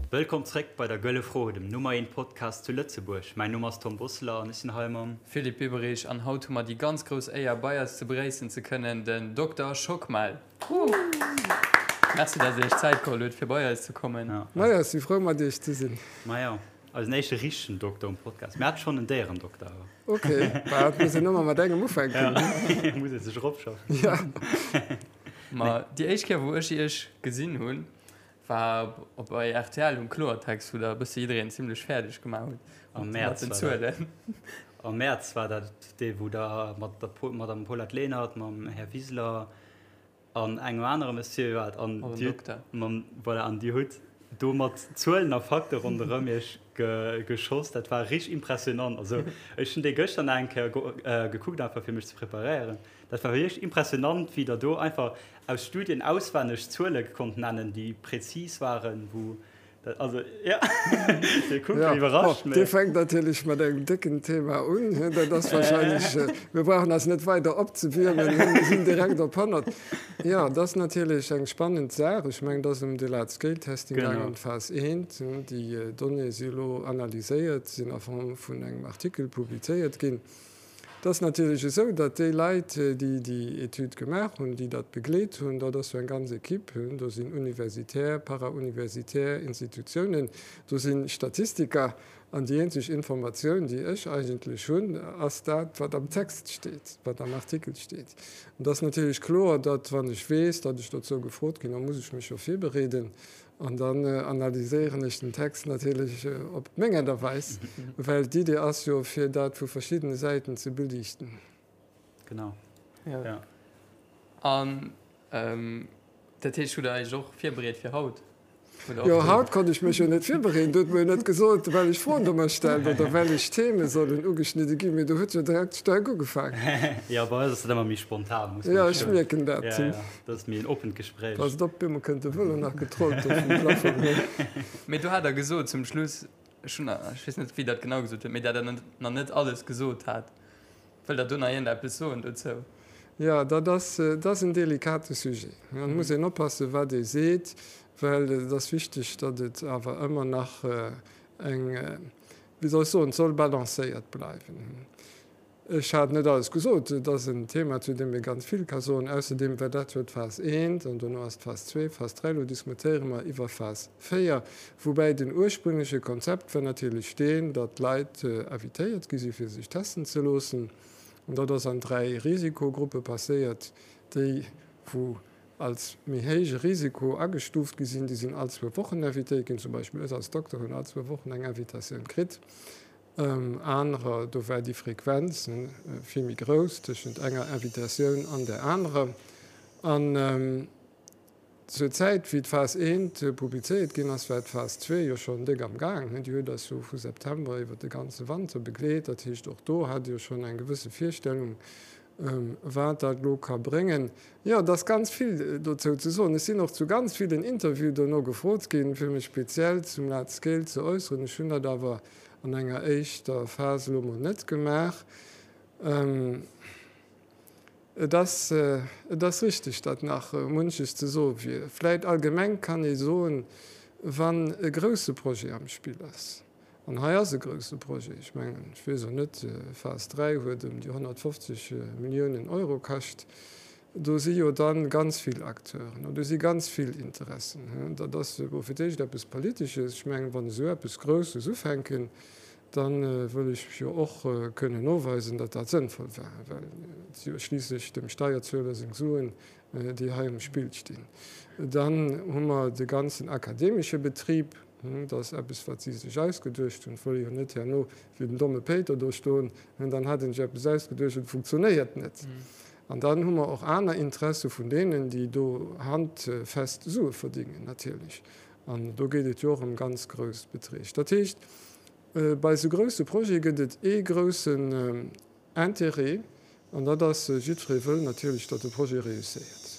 Wëllkomm zréck bei der Gëlle Fro, dem Nummer eent Podcast zu Lëtzebuerg. Mäin Numm ass Tom Bosseler an ech sinn hei mam. Philippe Biberich an haut hu mer déi ganz grouss Éier bei eis ze begréissen ze kënnen, den Dokter Schockmel. Merci dat dir iech Zäit geholl hutt fir bei eis ze kommen. Majo, ech si frou mat iech ze sinn. Majo, eisen éischte richtegen Dokter um Podcast. Mir hate schonn en Déierendokter awer. Ok, bah et muss een ëmmer mat engem ufänken. Ja, muss ee sech eropschaffen. Ja. Ma déi éischt Kéier wou ech iech gesinn hunn, war op bei rtl um Kloertext, wou der e bësse jiddereen zimlech fäerdeg gemaach hutt Am Mäerz mat den war dat. Zuelen. Am Mäerz war dat dee wou der mat der Madame Paulette Lenert, mam Här Wiseler an engem anere Monsieur waart an Mam Dir Dokter. mam voilà an Dir hutt do mat Zuelen a Fakte ronderëm Iech ge geschoss. Dat war richteg impressionant. Also ech hunn dee gëschter nach eng Kéier gekuckt einfach fir mech ze preparéieren. Dat war wierklech impressionant wéi Der do einfach aus Studien auswenneg Zuele konnt nennen, déi präzis waren, wou dat, also jo, Dir kuckt Ja, iwwerrascht, bon, mä. Dir fänkt natierlech mat engem décken Thema un. Dat ass wahrscheinlech, mir brauchen eis net weider opzewiermen, mir sinn direkt op 100. Jo, dat ass natierlech eng spannend Saach. Ech mengen, et ass ëm de Large-Scale-Testing gaangen, Genau. ëm d'Phas I. Déi Donnéeë si elo analyséiert, sinn a Form vun engem Artikel publizéiert ginn. Et ass natierlech esou, datt déi Leit, déi déi Etüd gemaach hunn, déi dat begleet hunn, dat ass jo eng ganz Equipe, do sinn universitär, para-universitär Institutiounen, do si Statistiker. An déi eenzeg Informatioun, déi ech eigentlech hunn, ass dat, wat am Text steet, wat am Artikel steet. An et ass natierlech kloer, datt, wann ech weess, datt ech dozou gefrot ginn, da muss ech mech jo virbereeden. An dann analyséieren ech den Text natierlech op meng Aart a Weis, well d'Idee ass jo, fir dat vu verschiddene Säiten ze beliichten. Genau, jo. An dat heescht, hutt Der Iech och virbereet fir haut? Jo, haut konnt ech mech jo net virbereeden. Do huet mer jo net gesot, wellech Froen Der mer stellt oder wellech Theme sollen ugeschnidde ginn, mee do huet jo direkt staark ugefaangen. Jo, bei eis ass dat ëmmer méi spontan, muss man. Jo, ech mierken dat. Ja, ja, dat ass méi en oppent Gespréich. Passt op, bemol kënnt de Vëlo nach getrollt do vum Plafong. Mee do hat Der gesot zum Schluss, ech hunn, ech weess net, wéi Der et genau gesot hutt, mee dat Der nach net alles gesot hat. Wëllt Der do nach iergendeppes soen dozou? Jo, dat ass, dat ass en delikate Sujet. Et muss een oppassen, wat ee seet, well et ass wichteg, datt et awer ëmmer nach eng, wéi soll ech soen, et soll balancéiert bleiwen. Ech hat net alles gesot. Et ass en Thema, zu deem ee ganz vill ka soen. Ausserdeem war dat jo d'Phas I an dono ass d'Phas ii, Phas dräi. Elo diskutéiere mer iwwer Phas véier, woubäi den ursprüngleche Konzept war natierlech deen, datt d'Leit invitéiert gi si fir sech testen ze loossen. An dat ass an 3 Risikogruppe passéiert. Déi, wou als méi héije Risiko agestuuft gi sinn, déi sinn all zwou Wochen invitéiert ginn. Zum Beispill ech als Dokter hunn all zwou Wochen eng Invitatioun kritt. Anerer, do war déi Frequenz vill méi grouss tëschent enger Invitatioun an där anerer. An zur Zäit, wéi d'Phas I publizéiert ginn ass, war d'Phas ii jo schonn déck am Gaang. Déi huet eis jo vu September iwwer de ganze Wanter begleet. Dat heescht, och do hat Dir schonn eng gewësse Virstellung, wat dat elo ka bréngen. Jo, et ass ganz vill dozou ze soen. Ech sinn och zu ganz villen Interviewen dono gefrot ginn, fir mech speziell zum Large Scale ze äusseren. Ech hunn dat awer an enger éischter Phas elo mol net gemaach. Et ass, et ass richtig, datt nach munches ze soe wier. Vläit allgemeng kann ee soen, wann e grouse Projet am Spill ass, An hei ass e grouse Projet. Ech mengen, ech weess och net, Phas 3 huet ëm déi 150 Milliounen Euro kascht. Do si jo da ganz vill Acteuren an do si ganz vill Interessen. Dat ass elo fir d'éischt eppes Politesches. Ech mengen, wann esou eppes Grousses ufänken, da wëll ech jo och kënnen noweisen, datt dat sënnvoll war, well et si jo schliisslech dem Steierzueler seng Suen, déi hei um Spill stinn. Dann hu mer de ganzen akademesche Betrib. Dat ass eppes, wat si sech ausgeduecht hunn. Et wëll ee jo net herno wéi den domme Péiter do stoen, dann hat een sech eppes ausgeduecht an et funktionéiert net. An dann hu mer och aner Interesse vun deenen, déi do handfest Sue verdingen natierlech. An do geet et jo och ëm ganz grouss Beträg. Dat heescht, bei esou grousse Projete gëtt et ee groussen Intérêt, an dat ass, jiddweree wëll natierlech, datt de Projet réusséiert.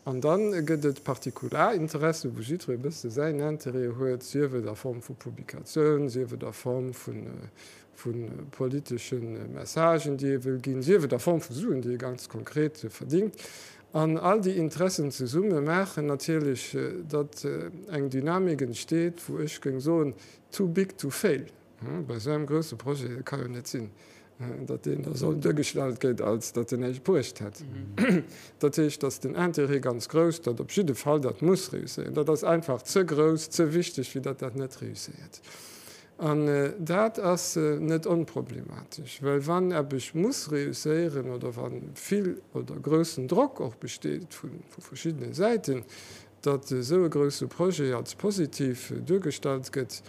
An da gëtt et Partikularinteressen, wou jiddweree e bësse säin Intérêt huet, sief et a Form vu Publikatioun, sief et a Form vu politesche Messagen, déi ee wëll ginn, sief et a Form vu Suen, déi ee ganz konkret verdingt. An all déi Interessen zesumme maachen natierlech, datt eng Dynamik entsteet, wou ech géing soen, too big to fail. Bei esou engem grousse Projet, et ka jo net sinn, datt deen da soll duergestallt gëtt, als datt en näischt bruecht hätt. Dat heescht, datt den Intérêt ganz grouss, datt op jidde Fall dat muss réusséieren. Dat ass einfach ze grouss, ze wichteg, fir datt dat net réusséiert. An dat ass net onproblematesch, well wann eppes muss réusséieren oder wa vill oder groussen Drock och besteet vu verschiddene Säiten, datt esou e grousse Projet als positiv duergestallt gëtt,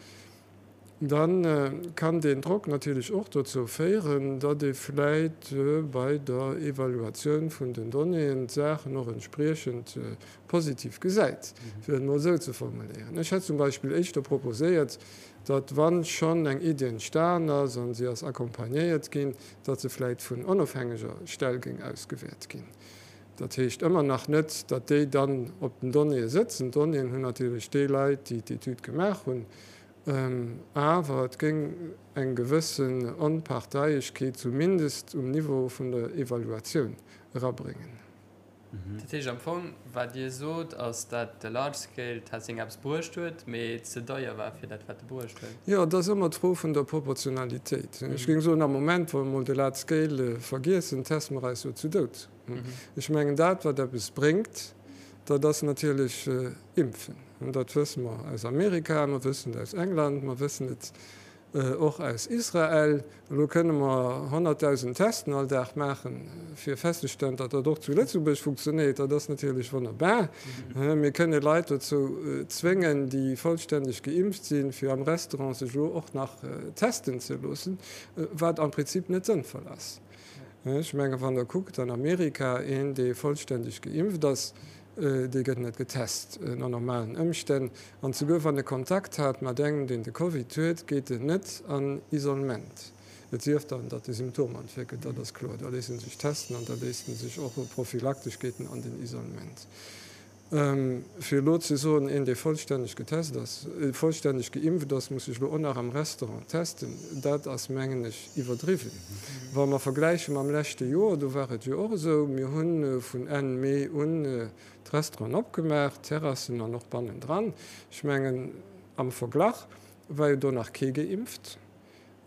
da kann deen Drock natierlech och dozou féieren, datt ee vläit bei der Evaluatioun vun den Donnéeën d'Saachen och entspriechend positiv gesäit, fir et emol esou ze formuléieren. Ech hätt zum Beispill éischter proposéiert, datt, wa schonn eng Iddi entstan ass a si ass accompagnéiert ginn, datt se vläit vun onofhängeger Stell géing ausgewäert ginn. Dat heescht ëmmer nach net, datt déi dann op den Donnéeë sëtzen. D'Donnéeën hunn natierlech déi Leit, déi d'Etüd gemaach hunn. Awer et géing eng gewëssen Onparteiegkeet zumindest um Niveau vun der Evaluatioun erabréngen. Dat heescht am Fong, wat Dir sot, ass, dat de Large Scale Testing eppes bruecht huet, mee ze deier war fir dat, wat e bruecht huet. Jo, et ass ëmmer d'Fro vun der Proportionalitéit. Ech géing soen, am Moment, wa mer emol de Large Scale vergiessen, teste mer eis jo zu Doud. Ech mengen, dat, wat eppes bréngt, dat ass natierlech Impfen. Dat wësse mer aus Amerika, mer wëssen et aus England, mer wëssen et Och aus Israel. Elo kënne mer 100.000 Testen all Dag maachen, fir festzestellen, datt dat och zu Lëtzebuerg funktionéiert. Dat ass natierlech wonnerbar. Mir kënne Leit dozou zwéngen, déi vollstänneg geimpft sinn, fir am Restaurant sech elo och nach testen ze loossen, wat am Prinzip net sënnvoll ass. Ech menge wann Der kuckt an Amerika, een, dee vollstänneg geimpft ass, Dee gëtt net getest ënner normalen Ëmstänn. An souguer wann e Kontakt hat mat engem, deen de Covid huet, geet en net an Isolement. Et sief dann, datt e Symptomer entwéckelt, dat ass kloer. Da léisst en sech testen an da léisst en sech och prophylaktesch geet en an den Isolement. Fir elo ze soen, een, dee vollstänneg getest ass, vollstänneg geimpft ass, muss sech elo och nach am Restaurant testen, dat ass, mengen ech, iwwerdriwwen. Wa mer vergläiche mam leschte Joer, do war et jo och esou, mir hu vun Enn Mee un d'Restauranten opgemaach, d'Terrassen an och bannendran. Ech mengen, am Verglach war jo do nach kee geimpft.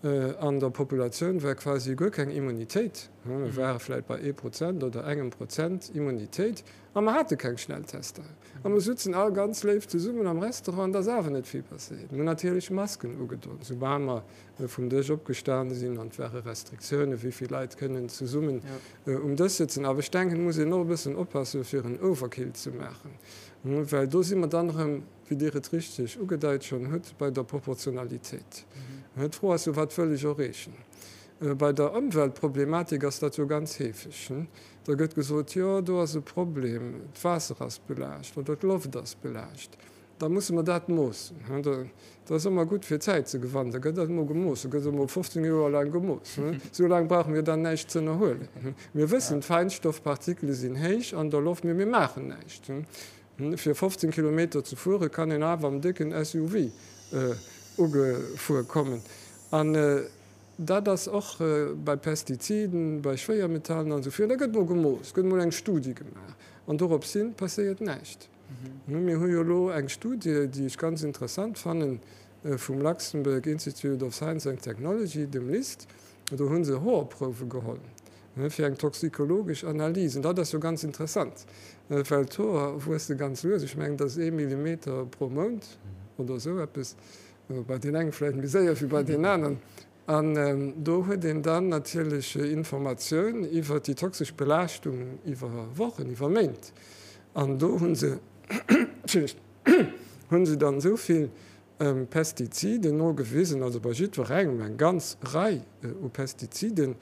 An der Populatioun war quasi guer keng Immunitéit. Mir ware vläicht bei ee Prozent oder engem Prozent Immunitéit a mer hate keng Schnelltester. A mer sutzen all ganz léif zesummen am Restaurant an et ass awer net vill passéiert. Mir hunn natierlech Masken ugedon, soubal mer vum Dësch opgestan sinn an et ware Restriktiounen, wéi vill Leit kënnen zesummen um Dësch sëtzen. Awer ech denken, et muss een och e bëssen oppassen, fir en Overkill ze maachen, well do si mer dann erëm, wéi Dir et richteg ugedeit schonn hutt, bei der Proportionalitéit. D'Fro ass jo, Wat wëll ech erreechen? Bei der Ëmweltproblematik ass dat jo ganz heefeg. Da gëtt gesot, Jo, do ass e Problem, d'Waasser ass belaascht oder d'Loft ass belaascht. Da musse mer dat moossen. Dat ass ëmmer gutt fir Zäit ze gewannen. Da gëtt dat emol gemooss. Da gëtt emol 15 Joer laang gemooss. Esou laang brauche mir dann näischt z'ënnerhuelen. Mir wëssen, d'Feinstoffpartikele sinn héich an der Loft, mee mir maachen näischt. Fir 15 Kilometer ze fuere kann een awer am décken SUV ugefuer kommen. An dat ass och bei Pestiziden, bei Schwéiermetallen an esou virun. Da gëtt emol gemooss, gëtt emol eng Studie gemaach an dorops hin passéiert näischt. Mir hu jo elo eng Studie, déi ech ganz interessant fannen, vum Luxembourg Institute of Science and Technology, dem LIST. Do hu se Hoerprouwe geholl fir eng toxikologesch Analys. An dat ass jo ganz interessant, well d'Hoer wuesse ganz lues, ech mengen, dat ass ee Millimeter pro Mount oder esou eppes, bei deenen enge vläicht méi séier wéi bei deenen aneren. An do huet een dann natierlech Informatioun iwwer déi toxesch Belaaschtung iwwer Wochen, iwwer Méint. An do hu se, Entschëllegt, hu se dann esou vill Pestiziden nogewisen, also bei jiddwerengem eng ganz Rei u Pestiziden,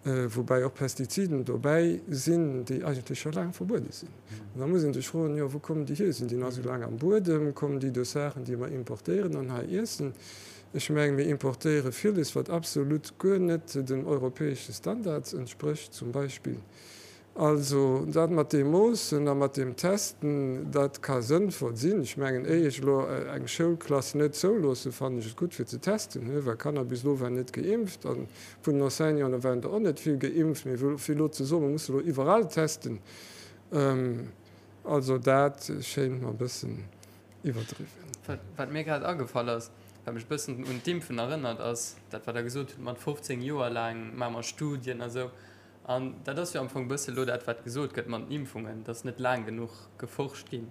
woubäi och Pestiziden dobäi sinn, déi eigentlech scho laang verbuede sinn. An da muss ee sech froen, jo wou kommen déi hier? Sinn déi nach esou laang am Buedem? Kommen déi duerch Saachen, déi mer importéieren an hei iessen? Ech mengen, mir importéiere villes, wat absolut guer net den europäesche Standards entsprécht zum Beispill. Also dat mat deem Moossen a mat deem Testen, dat ka sënnvoll sinn. Ech mengen, éier ech elo eng Schoulklass net zouloossen, fannen ech et gutt fir ze testen, well Kanner bis elo waren net geimpft a vun den Enseignanten waren der och net vill geimpft. Mee fir elo ze soen, mer musse elo iwwerall testen. Also dat schéint mer e bëssen iwwerdriwwen. Wat mir grad agefall ass, wat mech e bëssen un d'Impfen erënnert, ass dat, wat Der gesot hutt mat 15 Joer laang maache mer Studien a sou. An dat ass jo am Fong e bësse lo dat, wat gesot gëtt mat den Impfungen, dass net laang genuch geforscht ginn.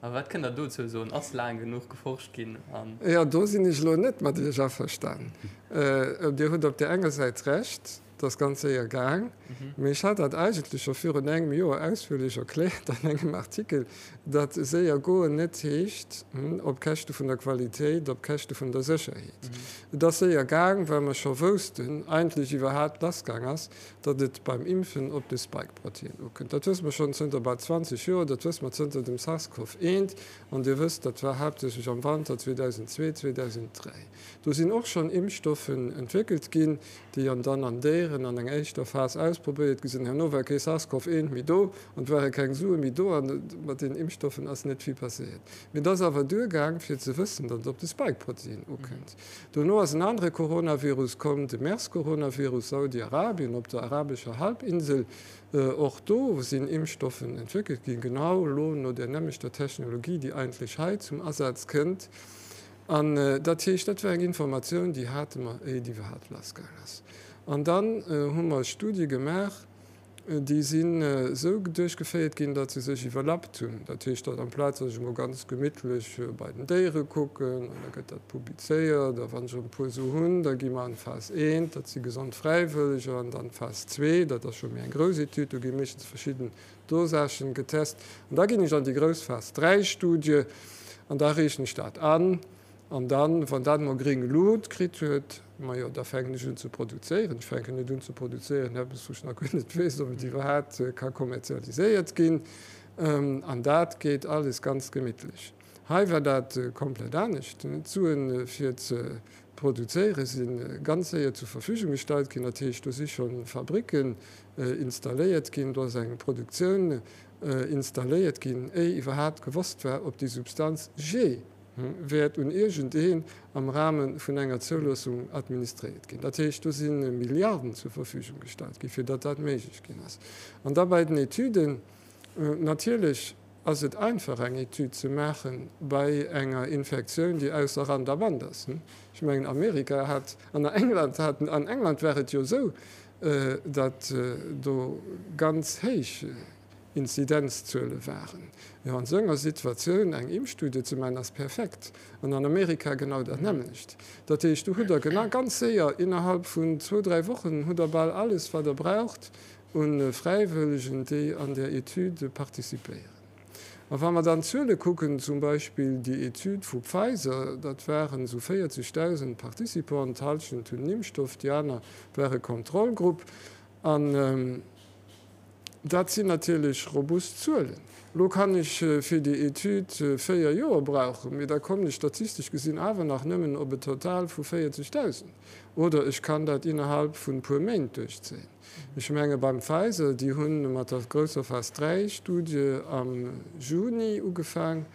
A wat kënnt Der dozou soen? Ass laang genuch geforscht ginn? An. Jo, do sinn ech elo net mat Iech averstan. Dir hutt op där enger Säit Recht, Et ass ganz séier gaang, mee ech hat dat eigentlech scho virun engem Joer ausführlech erkläert an engem Artikel, datt séier goen net heescht op Käschte vun der Qualitéit, op Käschte vun der Sécherheet. Et ass séier gaang, well mer scho woussten, eigentlech iwwerhaapt lassgaang ass, datt et beim Impfen op de Spike-Protein ukënnt. Dat wësse mer schonn zënter bal 20 Joer, dat wësse mer zënter dem SARS-CoV-1, an Dir wësst, dat war haaptsächlech am Wanter 2002, 2003. Do sinn och schonn Impfstoffen entwéckelt ginn, déi an dann an Déieren an enger éischter Phas ausprobéiert gi sinn. Herno war kee SARS-CoV 1 méi do an et ware keng Sue méi do an mat deenen Impfstoffen ass net vill passéiert. Mee et ass awer duergaang fir ze wëssen, datt et op de Spike-Protein ukënnt. Dono ass en anere Coronavirus komm, de MERS-Coronavirus, Saudi-Arabien, op der arabescher Halbinsel. Och do sinn Impfstoffen entwéckelt ginn, genau elo no där nämmlechter Technologie, déi eigentlech hei zum Asaz kënnt. An dat heescht, dat war eng Informatioun, déi hate mer, éier et iwwerhaapt lassgaang ass. An dann hu mer Studie gemaach, déi sinn esou duerchgeféiert ginn, datt se sech iwwerlappt hunn. Dat heescht, datt amplaz datt ech emol ganz gemittlech bei den Déiere kucken, an da gëtt dat publizéiert, a wann ech erëm e puer esou hunn, da gi mer an d'Phas I, dat si gesond Fräiwëlleger, an dann d'Phas ii, dat ass scho méi eng grouss Etüd, do gi meeschtens verschidden Dosagen getest an da ginn ech an déi grouss Phas 3 Studie an da reechen ech dat an an dann, wann dat emol gréng Lut kritt huet, majo da fänken ech un ze produzéieren. Ech fänken net un ze produzéieren eppes wou ech nach guer net weess, ob et iwwerhaapt ka kommerzialiséiert ginn an dat geet alles ganz gemittlech. Hei war dat komplett anescht. D'Suen fir ze produzéiere si ganz séier zur Verfügung gestallt ginn. Dat heescht, do si scho Fabricken installéiert ginn, do ass eng Produktioun installéiert ginn, éi iwwerhaapt gewosst war, ob déi Substanz jee wäert un iergendeen am Rahme vun enger Zouloossung administréiert ginn. Dat heescht, do si Milliarden zur Verfügung gestallt ginn, fir datt dat méiglech ginn ass. An da bei den Etüden, natierlech Ass et einfach eng Etüd ze maache bei enger Infektioun, déi ausser Rand a Band ass? Ech mengen Amerika hat, an England haten, an England war et jo esou, datt do ganz héich Inzidenzzuele waren. Jo, an esou enger Situatioun eng Impfstudie ze maachen, ass perfekt. An an Amerika genau dat nämmlecht. Dat heescht, do hutt Der genau ganz séier, innerhalb vun zwou, dräi Wochen hutt Der bal alles, wat Der braucht, u Fräiwëllegen, déi an där Etüd participéieren. A wa mer dann d'Zuele kucken, zum Beispill déi Etüd vu Pfizer, dat waren esou 40.000 Participanten, d'Hallschent hunn den Impfstoff, déi aner ware Kontrollgrupp. An dat sinn natierlech robust Zuelen. Elo kann ech fir déi Etüd 4 Joer brauchen, mee da kommen ech statistesch gesinn awer nach nëmmen op e Total vu 40.000. Oder ech kann dat innerhalb vun e puer Méint duerchzéien. Ech menge beim Pfizer, déi hu mat der grousser Phas 3 Studie am Juni ugefaang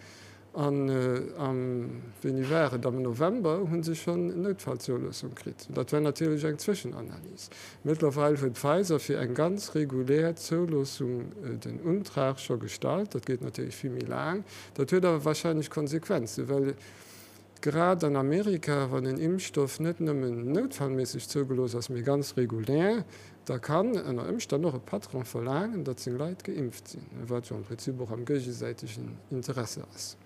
an am, wéini war et, am November hu se schonn Noutfallzoulossung kritt. Dat war natierlech eng Zwëschenanalys. Mëttlerweil huet Pfizer fir eng ganz regulär Zouloossung den Untrag scho gestallt. Dat geet natierlech vill méi laang. Dat huet awer wahrscheinlech Konsequenzen, well Grad an Amerika, wann en Impfstoff net nëmmen noutfallméisseg zougelooss ass, mee ganz regulär, da kann ënner Ëmstänn och e Patron verlaangen, datt seng Leit geimpft sinn, wat jo am Prinzip och am géigesäitegen Interesse ass.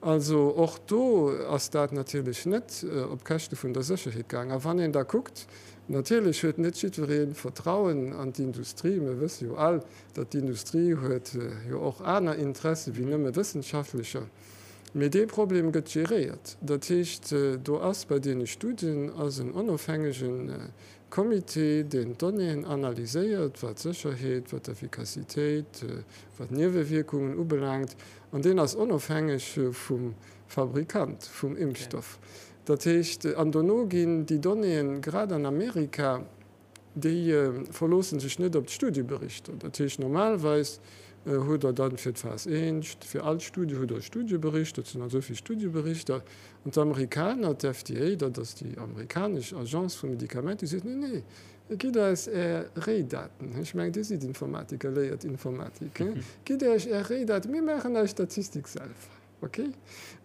Also och do ass dat natierlech net op Käschte vun der Sécherheet gaang. A wann een da kuckt, natierlech huet net jiddweree Vertrauen an d'Industrie. Mir wësse jo all, datt d'Industrie huet jo och aner Interesse wéi nëmme wëssenschaftlecher. Mee dee Problem gëtt geréiert. Dat heescht, do ass bei deene Studien ass en onofhängege Comité, deen d'Donnéeën analyséiert, wat d'Sécherheet, wat d'Effikassitéit, wat d'Niewewierkungen ubelaangt. An deen ass onofhängeg vum Fabrikant vum Impfstoff. Dat heescht, an dono ginn déi Donnéeën, grad an Amerika, Déi verloosse sech net op d'Studieberichter. Dat heescht, normalerweis. Hutt Der dann fir d'Phas I, fir all Studie hutt Der e Studiebericht, dat sinn dann esou vill Studieberichter. An d'Amerikaner, d'FDA, dat ass déi amerikanesch Agence vu Medikamenter, déi seet, Nee, nee, gitt eis Är Réidaten. Ech mengen, Dir sidd Informatiker, léiert Informatik, gitt Iech Är Réidaten, mir maachen eis Statistik selwer. Ok.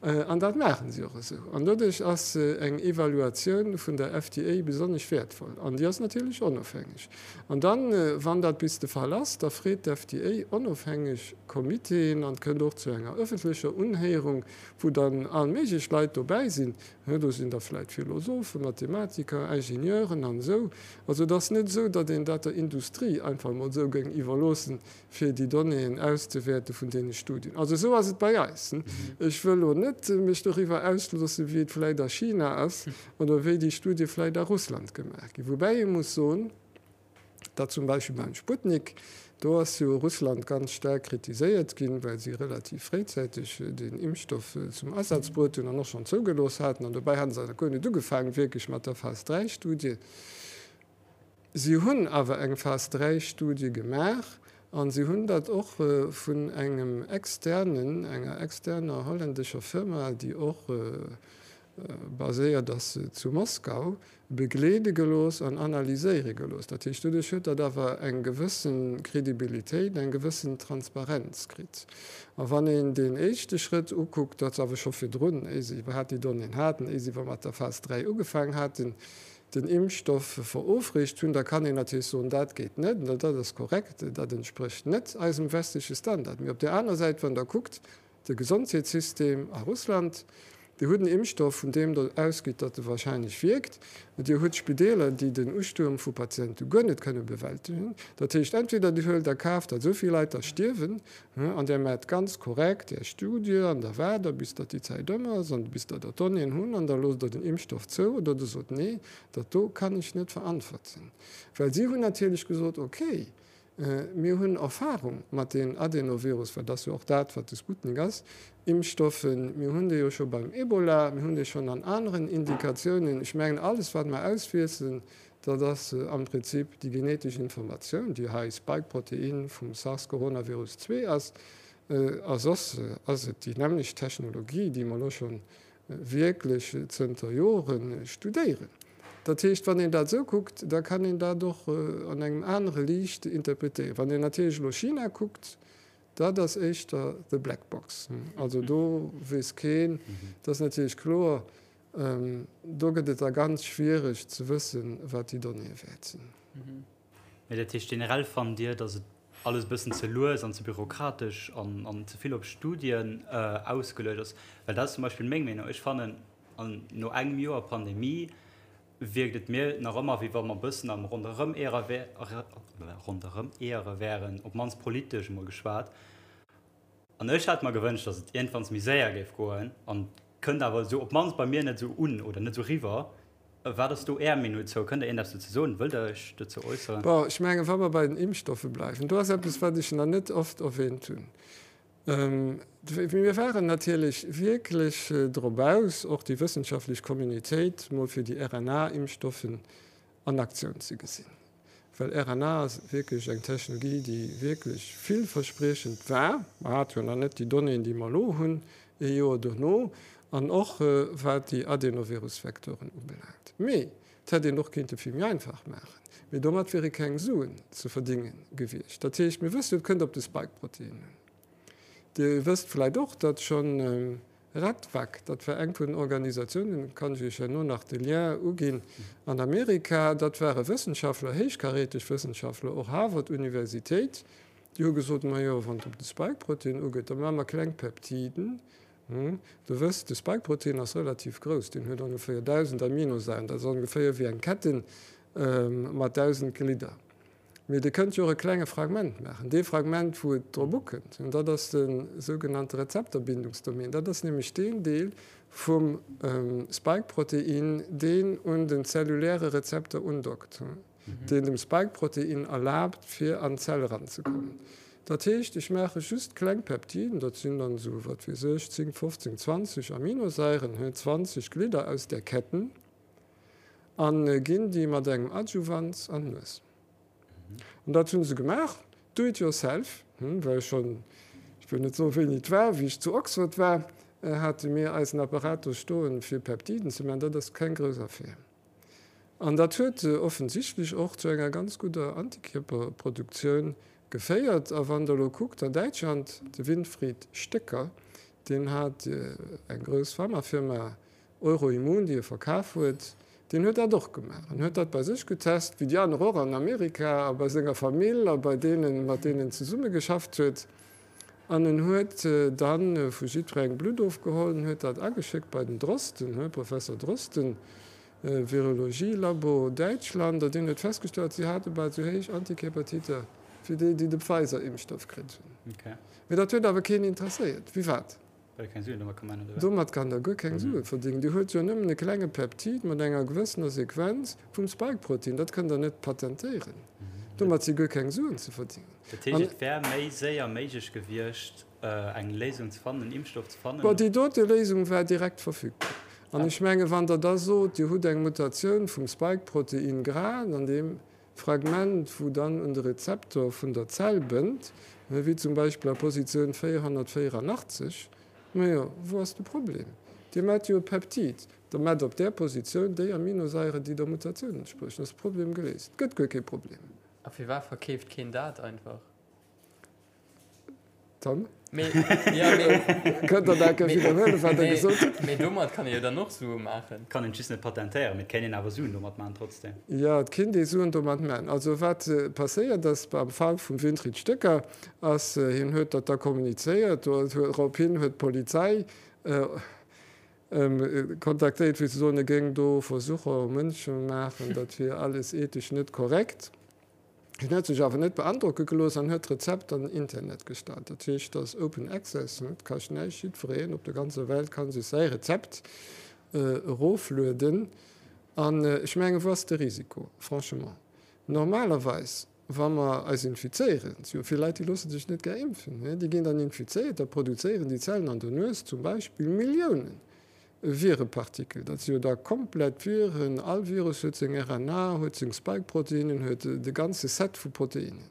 An dat maache si och esou. An doduerch ass eng Evaluatioun vun der FDA besonnesch wäertvoll. An déi ass natierlech onofhängeg. An dann, wann dat bis de Fall ass, da freet d'FDA onofhängeg Comitéen an et kënnt och zu enger ëffentlecher Unhéierung, wou dann all méiglech Leit dobäi sinn. Do sinn da vläicht Philosophen, Mathematiker, Ingenieuren an esou. Also et ass net esou, datt een dat der Industrie einfach emol esou géing iwwerloossen, fir déi Donnéeën auszewäerte vun deene Studien. Also esou ass et bei eis. Ech wëll elo net mech doriwwer ausloossen, wéi et vläicht a China ass oder wéi déi Studie vläicht a Russland gemaach ginn. Woubäi ee muss soen, datt zum Beispill beim Sputnik, do ass jo Russland ganz staark kritiséiert ginn, well si relativ fréizäiteg deen Impfstoff zum Asaz bruet hunn an och schonn zougelooss haten. An dobäi hate se nach guer net ugefaangen wierklech mat der Phas-III-Studie. Si hunn awer eng Phas-III-Studie gemaach a si hunn dat och vun engem externen, enger externer holländescher Firma, déi och baséiert ass zu Moskau, begleede gelooss an analyséiere gelooss. Dat heescht, doduerch huet dat awer eng gewësse Kredibilitéit, eng gewëssen Transparenz kritt. A wann een deen éischte Schrëtt ukuckt, dat ass awer scho virdrun, éi se iwwerhaapt déi Donnéeën haten, éi se iwwer mat der Phas 3 ugefaangen haten, den Impfstoff verofreecht hunn, da kann een natierlech soen, dat geet net, an dat ass korrekt, dat entsprécht net eisem westleche Standard. Mee op där aner Säit, wann Der kuckt, de Gesondheetssystem a Russland, Dir hutt en Impfstoff, vun deem Der ausgitt, datt e wahrscheinlech wierkt, Dir hutt Spideeler, déi den Ustuerm vu Patiente guer net kënne bewältegen. Dat heescht, entweder Dir huelt a Kaf, datt esou vill Leit da stierwen, An Där maacht ganz korrekt Är Studie an da waart Der, bis datt déi Zäit ëm ass an bis Der der Donnéeën hunn an da loosst Der den Impfstoff zou oder Der sot, Nee, dat do kann ech net verantworten. Well si hunn natierlech gesot, Okay, mir hunn Erfahrung mat den Adenovirus, well dat ass jo och dat, wat de Sputnik ass, Impfstoffen, mir hunn déi jo scho beim Ebola, mir hunn déi schonn an aneren Indikatiounen. Ech mengen, alles, wat mer auswiesselen, Dat ass am Prinzip déi genetesch Informatioun, déi hei Spike-Protein vum SARS-Coronavirus 2 ass. A soss ass et déi nämmlecht Technologie, déi mer elo scho wierklech zënter Jore studéieren. Dat heescht, wann een dat esou kuckt, da kann een dat och an engem anere Liicht interpretéieren. Wann een natierlech elo China kuckt, dat ass éischter the black box. Also do weess keen, dat ass natierlech kloer, Do gëtt et da ganz schwiereg ze wëssen, wat déi Donnéeë wäert sinn. Mee dat heescht, generell fannt Dir, datt et alles e bëssen ze lues an ze bürokratesch an ze vill op Studien ausgeluecht ass? Well dat ass zum Beispill meng Meenung. Ech fannen, no engem Joer Pandemie wierkt et mir nach ëmmer, wéi wa mer e bëssen am Ronderëmeere wären, op d'mannst politesch emol geschwat. An ech hätt mer gewënscht, datt et iergendwanns méi séier géif goen. An kënnt awer esou, op d'mannst bei mir, net esou un oder net esou riwwer. Wat ass do Är Meenung dozou? Kënnt Der iergendeppes dozou soen? Wëllt Der Iech dozou äusseren? Bon, ech mengen, wa mer bei den Impfstoffe bleiwen, do ass eppes, wat ech nach net oft erwähnt hunn. Mir waren natierlech wierklech drop aus, och déi wëssenschaftlech Communitéit mol fir déi RNA-Impfstoffen an Aktioun ze gesinn. Well RNA ass wierklech eng Technologie, déi wierklech villverspriechend war. Mer hate jo nach net déi Donnéeën, déi mer elo hunn, ee Joer dono, an och wat déi Adenovirus-Vektoren ubelaangt. Mee et hätt een och kéinte vill méi einfach maachen. Mee domat wiere keng Suen ze verdénge gewiescht. Dat heescht, mir wëssen, et kënnt op de Spike-Protein un. Dir wësst vläicht och, datt schonn Radvac, dat war eng vun den Organisatiounen, kann ech Iech herno nach de Lien uginn, an Amerika, dat ware Wëssenschaftler, héichkaräteg Wëssenschaftler, och Harvard Universitéit, déi hu gesot, majo, wann et op de Spike-Protein ugeet, da maache mer kleng Peptiden. Der wësst, de Spike-Protein ass relativ grouss, deen huet ongeféier 1.000 Aminosairen, dat ass ongeféier wéi eng Ketten mat 1.000 Glidder. Mee Dir kënnt jo och e klenge Fragment maachen, dee Fragment, wou et drop ukënnt, an dat ass de sougenannte Rezepterbindungsdomain. Dat ass nämlech deen Deel vum Spike-Protein, deen un den zelluläre Rezepter undockt, deen dem Spike-Protein erlaabt, fir an d'Zell eranzekommen. Dat heescht, ech maache just kleng Peptiden, dat sinn dann esou, wat weess ech, 10, 15, 20 Aminosairen, 20 Glidder aus där Ketten, a ginn déi mat engem Adjuvant an d'Nues. An dat hu se gemaach. Do it yourself, well schonn, ech wëll net soen, wéini et war, wéi ech zu Oxford war, hate mir eisen Apparat do stoen, fir Peptiden ze maachen. Dat ass keng grouss Affär. An dat huet offensichtlech och zu enger ganz gudder Antikierperproduktioun geféiert. A wann Der elo kuckt an Däitschland, de Winfried Stöcker, deen hat eng grouss Pharmafirma Euroimmun, déi e verkaf huet, deen huet dat och gemaach an huet dat bei sech getest, wéi déi aner och an Amerika a bei senger Famill a bei deenen, mat deenen en zesummegeschafft huet. An en huet da vu jiddwerengem Blutt ofgeholl an huet dat ageschéckt bei den Drosten, Professor Drosten, Virologie-Labo, Däitschland, a deen huet festgestallt, si hate bal esou héich Antikierpertiter wéi déi, déi de Pfizer-Impfstoff kritt hunn. Mee dat huet awer keen interesséiert. Wéi wat? Well ee keng Suen domat ka maachen, oder wat? Domat kann der guer keng Sue verdéngen. Dir huet jo nëmmen e klenge Peptid mat enger gewëssener Sequenz vum Spike-Protein. Dat kënnt der net patentéieren. Domat si guer keng Suen ze verdéngen. Dat heescht, et wär méi séier méiglech gewiescht, eng Léisung ze fannen, en Impfstoff ze fannen? Bon, déi dote Léisung war direkt verfügbar. An ech menge wann Der da sot, Dir hutt eng Mutatioun vum Spike-Protein grad an deem Fragment, wou dann un de Rezeptor vun der Zell bënnt, wéi zum Beispill a Positioun 484, majo, wou ass de Problem? Dir maacht jo e Peptid, da maacht op där Positioun déi Aminosaiere, déi der Mutatioun entspriechen, ass de Problem geléist. Et gëtt guer kee Problem. A firwat verkeeft keen dat einfach? Dann Mee, ja, mee, kënnt Der dat gär widderhuelen, wat Der gesot hutt. Mee domat kann ee jo dann och Sue maachen. Kann een just net patentéieren, mee et kéint een awer Suen domat maachen trotzdem. Jo, et kéint ee Suen domat maachen. Also wat passéiert ass beim Fall vum Winfried Stöcker ass, hien huet dat da kommunizéiert, dorophin huet d'Polizei kontaktéiert fir ze soen, e géing do Versucher u Mënsche maachen, dat wier alles ethesch net korrekt. Hien huet sech awer net beandrocke gelooss an huet d'Rezept an den Internet gestallt. Dat heescht, dat ass Open Access, et kascht näischt, jiddwereen op der ganzer Welt ka sech säi Rezept eroflueden. An ech mengen, wou ass de Risiko, franchement? Normalerweis, wa mer eis infizéieren, et si jo vill Leit, déi loosse sech net gär impfen, déi ginn dann infizéiert, da produzéieren déi Zellen an der Nues zum Beispill Milliounen Virepartikel, dat si jo da komplett Viren, all Virus huet seng RNA, huet seng Spike-Proteinen, huet de ganze Set vu Proteinen.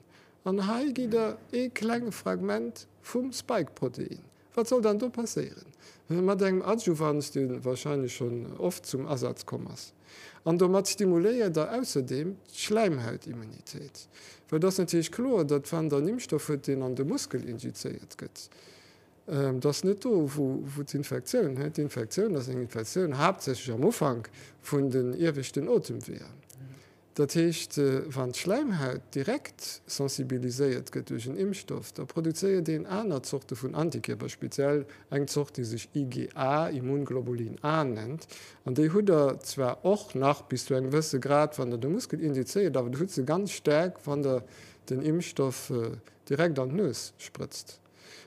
An hei gitt Der ee klenge Fragment vum Spike-Protein. Wat soll dann do passéieren? Mat engem Adjuvans, dee wahrscheinlech schonn oft zum Asaz komm ass. An domat stimuléiert Der ausserdeem d'Schläimhautimmunitéit. Well et ass natierlech kloer, datt wann Der en Impfstoff hutt, deen an de Muskel injizéiert gëtt, Et ass net do, wou d'Infektioun, d'Infektioun ass eng Infektioun haaptsächlech am Ufank vun den ieweschten Otemweeër. Dat heescht, wann d'Schläimhaut direkt sensibiliséiert gëtt duerch en Impfstoff, da produzéiert een aner Zorte vun Antikierper, speziell eng Zort, déi sech IgA, Immunglobulin A, nennt. An déi hutt Der zwar och nach bis zu engem gewësse Grad, wann Der de Muskel injizéiert, awer Der hutt se ganz staark, wann Der den Impfstoff direkt an d'Nues sprëtzt.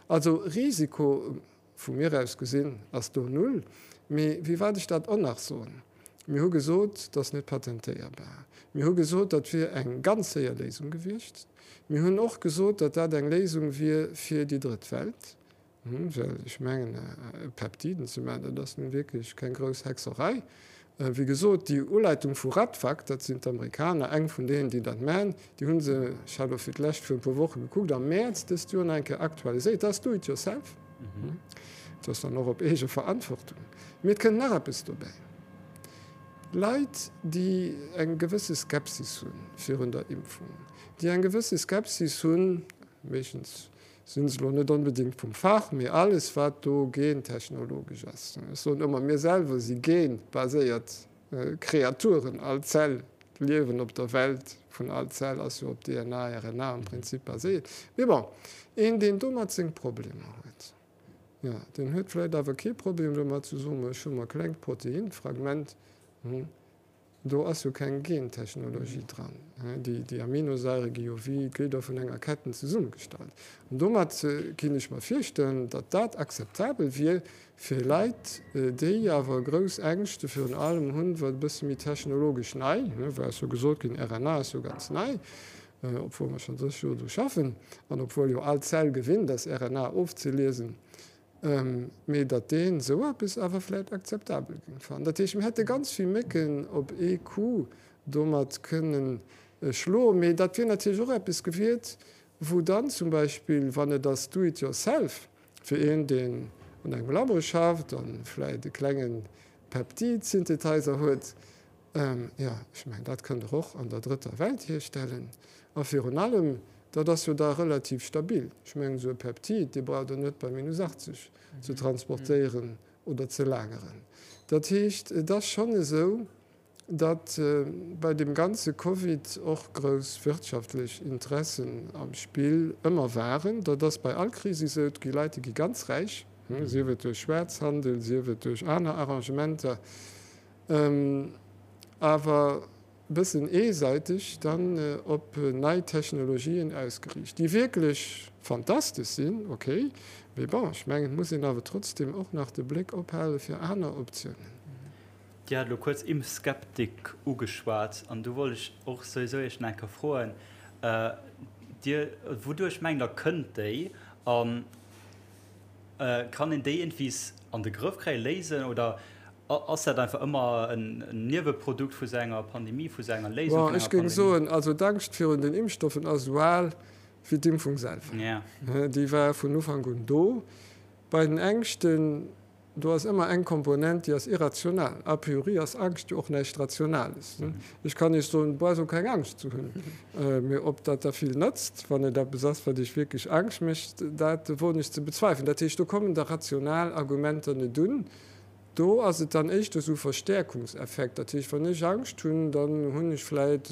Also Risiko, vu mir aus gesinn, ass do null. Mee wéi wat ech dat och nach soen, Mir hu gesot, dat ass net patentéierbar. Mir hu gesot, dat wier eng ganz séier Léisung gewiescht. Mir hunn och gesot, datt dat eng Léisung wier fir déi Drëtt Welt. Well ech mengen, Peptiden ze maachen, dat ass nun wierklech keng grouss Hexerei. Wéi gesot, déi Uleitung vu Radvac, dat sinn d'Amerikaner, eng vun deenen, déi dat maachen, déi hu se, ech hat elo fir d'lescht vir e puer Woche gekuckt, am Mäerz dëst Joer nach eng Kéier aktualiséiert. Dat ass Do-it-yourself. Dat ass dann och op eege Verantwortung. Mee et kënnt nach eppes dobäi, Leit, déi eng gewësse Skepsis hu virun der Impfung, déi eng gewësse Skepsis hunn, meeschtens Sinn se elo net onbedéngt vum Fach, mee alles wat do gentechnologesch ass. Ech soen ëmmer, mir selwer si genbaséiert Kreaturen. All Zell, d'Liewen op der Welt vun all Zell ass jo op DNA, RNA am Prinzip baséiert. Mee bon, een deen domat seng Problemer huet, jo, deen huet vläicht awer kee Problem domat ze soen, ech hu mer e klengt Proteinfragment, Do ass jo keng Gentechnologie dran. Déi Aminosaire gi jo wéi d'Glidder vun enger Ketten zesummegestallt. An domat kinnt ech mer virstellen, datt dat akzeptabel wier fir Leit, déi awer grouss Ängschte virun allem hunn, wat e bësse méi technologesch nei, well ass jo gesot ginn, RNA ass jo ganz nei, obwuel mer schonn 30 Joer dru schaffen an obwuel jo all Zell gewinnt ass, RNA ofzeliesen. Mee datt deen esou eppes awer vläit akzeptabel géing fannen. Dat heescht, mir hätte ganz vill Mécken op ee Coup domat kënnen schloen. Mee dat wier natierlech och eppes gewiert, Wou dann zum Beispill, wann et ass do it yourself, fir een, deen an engem Labo schafft a vläicht e klenge Peptid-Synthetizer huet, jo, ech mengen, dat kënnt Der och an der drëtter Welt hierstellen. A virun allem, dat ass jo da relativ stabil. Ech mengen, esou e Peptid, dee braucht Der net bei minus 80 ze transportéieren oder ze lageren. Dat heescht, et ass schonn esou, datt bei deem ganze Covid och grouss wirtschaftlech Interessen am Spill ëmmer waren. Dat ass bei all Kris esou. Et gi Leit, déi gi ganz räich, sief et duerch Schwaarzhandel, sief et duerch aner Arrangementer, awer e bëssen eesäiteg dann op nei Technologien ausgeriicht, déi wierklech fantastesch sinn, okay, mee bon, ech mengen, et muss een awer trotzdem och nach de Bléck ophale fir aner Optiounen. Dir hat elo kuerz Impfskeptik ugeschwat an do wollt ech och souwisou Iech nach eng Kéier froen, Dir, wouduerch mengt Der kënnt déi a kann een déi iergendwies an de Grëff kréien, léisen oder ass dat einfach ëmmer en Nieweprodukt vu sou enger Pandemie, vu sou enger Léisung vun enger Pandemie? Bon, ech géing soen, also d'Angscht virun den Impfstoffen ass esou al wéi d'Impfung selwer. Déi war vun Ufank un do. Bei den Ängschten, Do ass ëmmer eng Komponent, déi ass irrational. A priori ass Angscht jo och näischt Rationales. Ech kann Iech soen, brauchst och keng Angscht ze hunn. Mee ob dat da vill nëtzt, wann et eppes ass, wat Iech wierklech Angscht mécht, dat woen ech ze bezweifelen. Dat heescht, do kommen da rational Argumenter net un. Do ass et dann éischter esou Verstäerkungseffekt. Dat heescht, wann ech Angscht hunn, dann hunn ech vläit,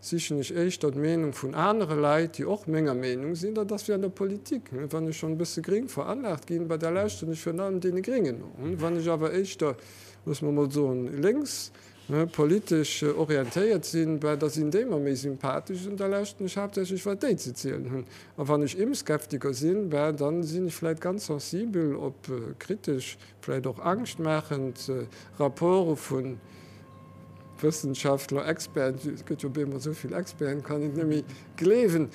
sichen ech éischter d'Meenung vun anere Leit, déi och menger Meenung sinn. Dat ass wéi an der Politik, wann ech schonn e bësse gréng veranlaagt ginn, bah da lauschteren ech virun allem deene Gréngen no. Wann ech awer éischter, loosse mer emol soen, lénks politesch orientéiert sinn, bah da sinn déi mer méi sympathesch an da lauschteren ech haaptsächlech wat déi ze zielen hunn. A wann ech Impfskeptiker sinn, bah da sinn ech vläit ganz sensibel op kritesch, vläit och angschtmaachend Rapporte vu Wëssenschaftler, Experten, et gëtt jo op eemol esou vill Experten, kann een et net méi gleewen.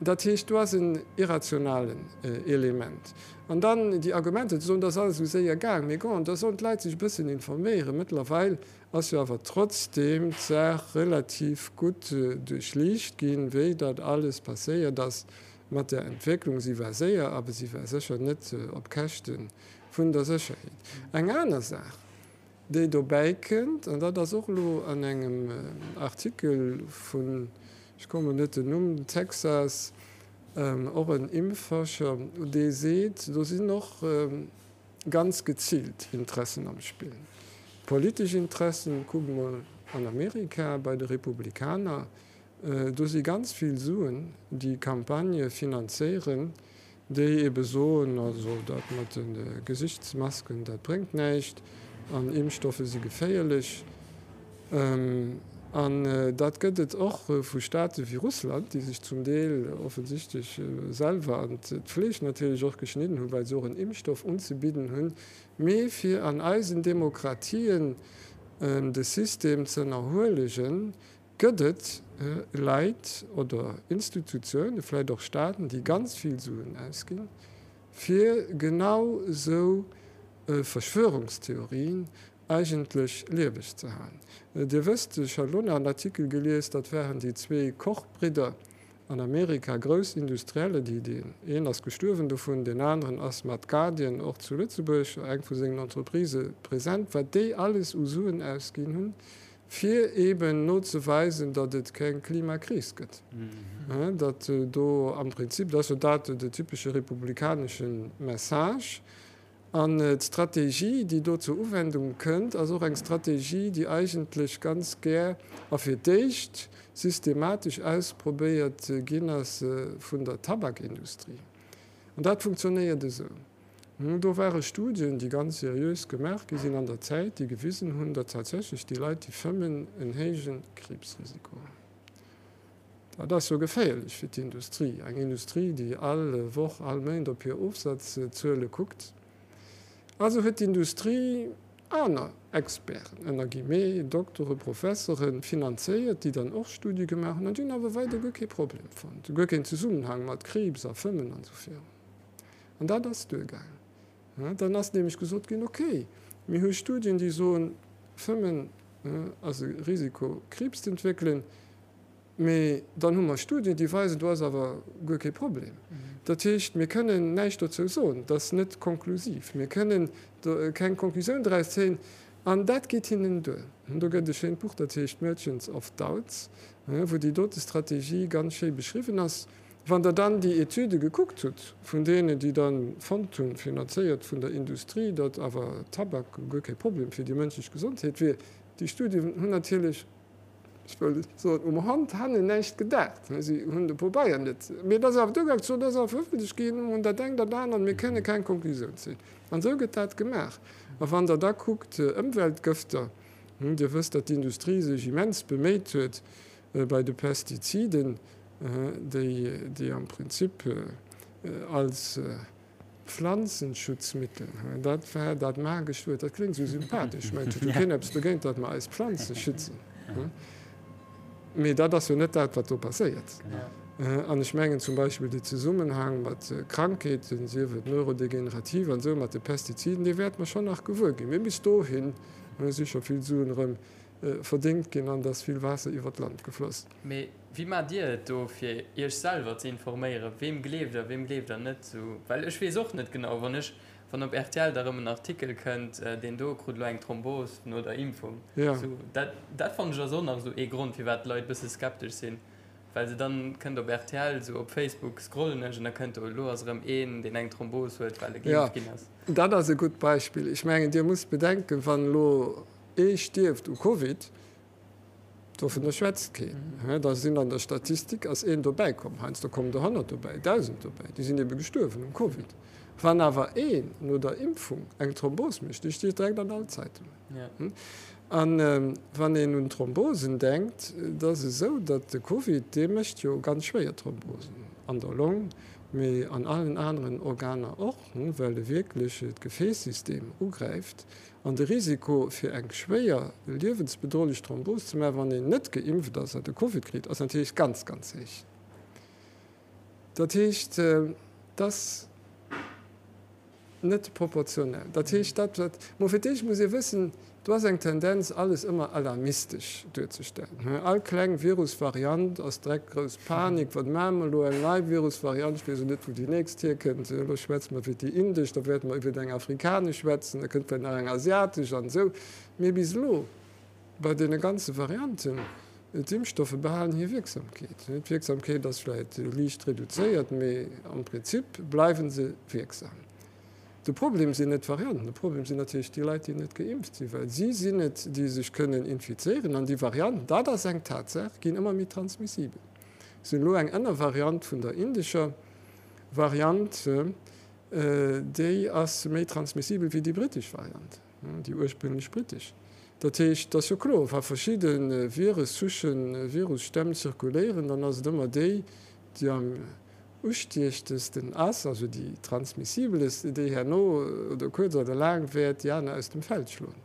Dat heescht, do ass en irrationalen Element. An dann déi Argumenter ze soen, dat ass alles esou séier gaang, mee bon, da sollen d'Leit sech e bëssen informéieren. Mëttlerweil ass jo awer trotzdeem d'Saach relativ gutt duerchliicht ginn, wéi dat alles passéiert ass mat der Entwécklung. Si war séier, awer si war sécher net op Käschte vun der Sécherheet. Eng aner Saach, déi dobäi kënnt, an dat ass och elo an engem Artikel vun, ech kommen net den Numm, Texas, och en Impfforscher, dee seet, do sinn och ganz geziilt Interessen am Spill, politesch Interessen, kuckt mol an Amerika bei de Republikaner, Do si ganz vill Suen, déi Campagnë finanzéieren, déi ebe soen, also dat mat de Gesichtsmasken, dat bréngt näischt an Impfstoffe si geféierlech. An dat gëtt et och vu Staate wéi Russland, déi sech zum Deel offensichtlech selwer an d'Fleesch natierlech och geschnidden hunn, well se och en Impfstoff unzebidden hunn. Mee fir an eisen Demokratien de System z'ënnerhuelegen, Gëtt et Leit oder Institutiounen, vläicht och Staaten, déi ganz vill Suen ausginn, fir genau esou Verschwörungstheorien eigentlech lieweg ze halen? Dir wësst, ech hat elo nach en Artikel gelies, dat waren déi zwee Koch-Bridder an Amerika, grouss Industrielle, déi, deen een ass gestuerwen dovun, deen aneren ass mat Guardian och zu Lëtzebuerg, eng vu sengen Entreprisë, present, wat déi alles u Suen ausginn hunn, fir eeben nozeweisen, datt et keng Klimakris gëtt, datt do am Prinzip, dat ass jo dat de typesche republikanesche Message, an d'Strategie, déi do zur Uwendung kënnt, ass och eng Strategie, déi eigentlech ganz gär a fir d'éischt systematesch ausprobéiert ginn ass vun der Tabakindustrie. An dat funktionéiert esou. Do ware Studien, déi ganz seriös gemaach gi sinn an der Zäit, déi gewisen hunn, datt tatsächlech déi Leit, déi fëmmen, en héije Kriibsrisiko hunn. Dat ass jo geféierlech fir d'Industrie, eng Industrie, déi all Woch, all Méint op hir Ofsazzuele kuckt. Also huet d'Industrie aner Experten, ënner Guillemets, Doktore, Professeren, finanzéiert, déi dann och Studie gemaach hunn an déi hunn awer weider guer kee Problem fonnt, guer keen Zesummenhang mat Kriibs a Fëmmen an esou virun. An dat ass duergaangen. Dann ass nämlech gesot ginn, okay, mir hu Studien, déi soen, Fëmmen ass e Risiko, Kriibs z'entwéckelen. Mee dann hu mer Studien, déi weisen, do ass awer guer kee Problem. Dat heescht, mir kënnen näischt dozou soen. Dat ass net konklusiv. Mir kënnen do keng Konklusioun draus zéien. An dat geet hinnen duer. Do gëtt e schéint Buch, dat heescht Merchants of Doubts, wou déi dote Strategie ganz schéi beschriwwen ass. Wann Der dann déi Etüde gekuckt hutt vun deenen, déi da fonnt hunn, finanzéiert vun der Industrie, datt awer Tabak guer kee Problem fir déi mënschlech Gesondheet wier, déi Studien hunn natierlech, ech wëll soen, um Hand hannen näischt gedaacht. Si hunn de Pobeier net. Mee et ass awer duergaangen, ze soen, dat ass awer verëffentlecht ginn, an dat engt an dat anert, mir kënne keng Konklusioun zéien. An esou gëtt dat gemaach. A wann Der da kuckt, Ëmweltgëfter, Dir wësst, datt d'Industrie sech immens beméit huet bei de Pestiziden, déi am Prinzip als Pflanzenschutzmittel, dat war dat magescht Wuert, dat kléngt esou sympathesch, mä et huet jo keen eppes dogéint, datt mer eis Planze schützen, mee dat ass jo net dat, wat do passéiert. An ech mengen zum Beispill de Zesummenhang mat Krankheeten, sief et neurodegenerativ an esou, mat de Pestiziden, dee wäerte mer schonn nach gewuer ginn. Mee bis dohin si scho vill Suen erëm verdéngt ginn an et ass vill Waasser iwwer d'Land gefloss. Mee wéi maacht Dir et do fir Iech selwer ze informéieren? Weem gleeft Der, weem gleeft Der net? Sou, well ech weess och net genau, wann ech, wann op rtl da rëm en Artikel kënnt, deen do krut elo eng Thrombos no der Impfung, sou, dat, dat fannen ech ass och nach esou ee Grond firwat d'Leit bësse skeptesch sinn, well se dann kënnt op rtl, sou op Facebook scrollen ech an da kënnt do, elo ass erëm een, deen eng Thrombos huet, well e geimpft ginn ass. Jo, dat ass e gutt Beispill. Ech mengen, Dir musst bedenken, wann elo ee stierft u Covid, Dovunner schwätzt keen. Da sinn an der Statistik ass een dobäi komm, heiansdo kommen der 100 dobäi, 1.000 dobäi, déi sinn ebe gestuerwen um Covid. Wann awer een no der Impfung eng Thrombos mécht, déi steet direkt an all Zeitungen. A wann een un Thrombosen denkt, et ass esou, datt de Covid, dee mécht jo ganz schwéier Thrombosen an der Long, mee an allen aneren Organer och, well e wierklech d'Gefäässystem ugräift. An de Risiko fir eng schwéier, liewensbedrohlech Thrombos ze maachen, wann een net geimpft ass a de Covid kritt, ass natierlech ganz, ganz héich. Dat heescht, et ass net proportionell. Dat heescht, dat wat, mo fir d'éischt muss ee wëssen, do ass eng Tendenz, alles ëmmer alarmistesch duerzestellen. All kleng Virusvariant ass direkt grouss Panik, wat maache mer elo, eng nei Virusvariant, ech weess och net, wou déi nächst hierkënnt, elo schwätze mer iwwer déi indesch, da wäerte mer iwwer eng afrikanesch schwätzen, da kënnt vläicht nach eng asiatesch an esou. Mee bis elo bei deene ganze Varianten, d'Impfstoffe behalen hir Wierksamkeet. D'Wierksamkeet ass vläicht liicht reduzéiert, mee am Prinzip bleiwe se wierksam. De Problem sinn net d'Varianten, de Problem sinn natierlech déi Leit, déi net geimpft sinn, well si sinn et, déi sech kënnen infizéieren. An déi Varianten, dat ass eng Tatsaach, ginn ëmmer méi transmissibel. Si hunn elo eng Ënnervariant vun der indescher Variant, déi ass méi transmissibel wéi déi brittesch Variant, déi ursprünglech brittesch. Dat heescht, et ass jo kloer, wa verschidde Viressouchen, Virusstämm zirkuléieren, dann ass et ëmmer déi, déi am ustiechtesten ass, also déi transmissibelest, déi herno oder kuerz oder laang wäert déi aner aus dem Feld schloen.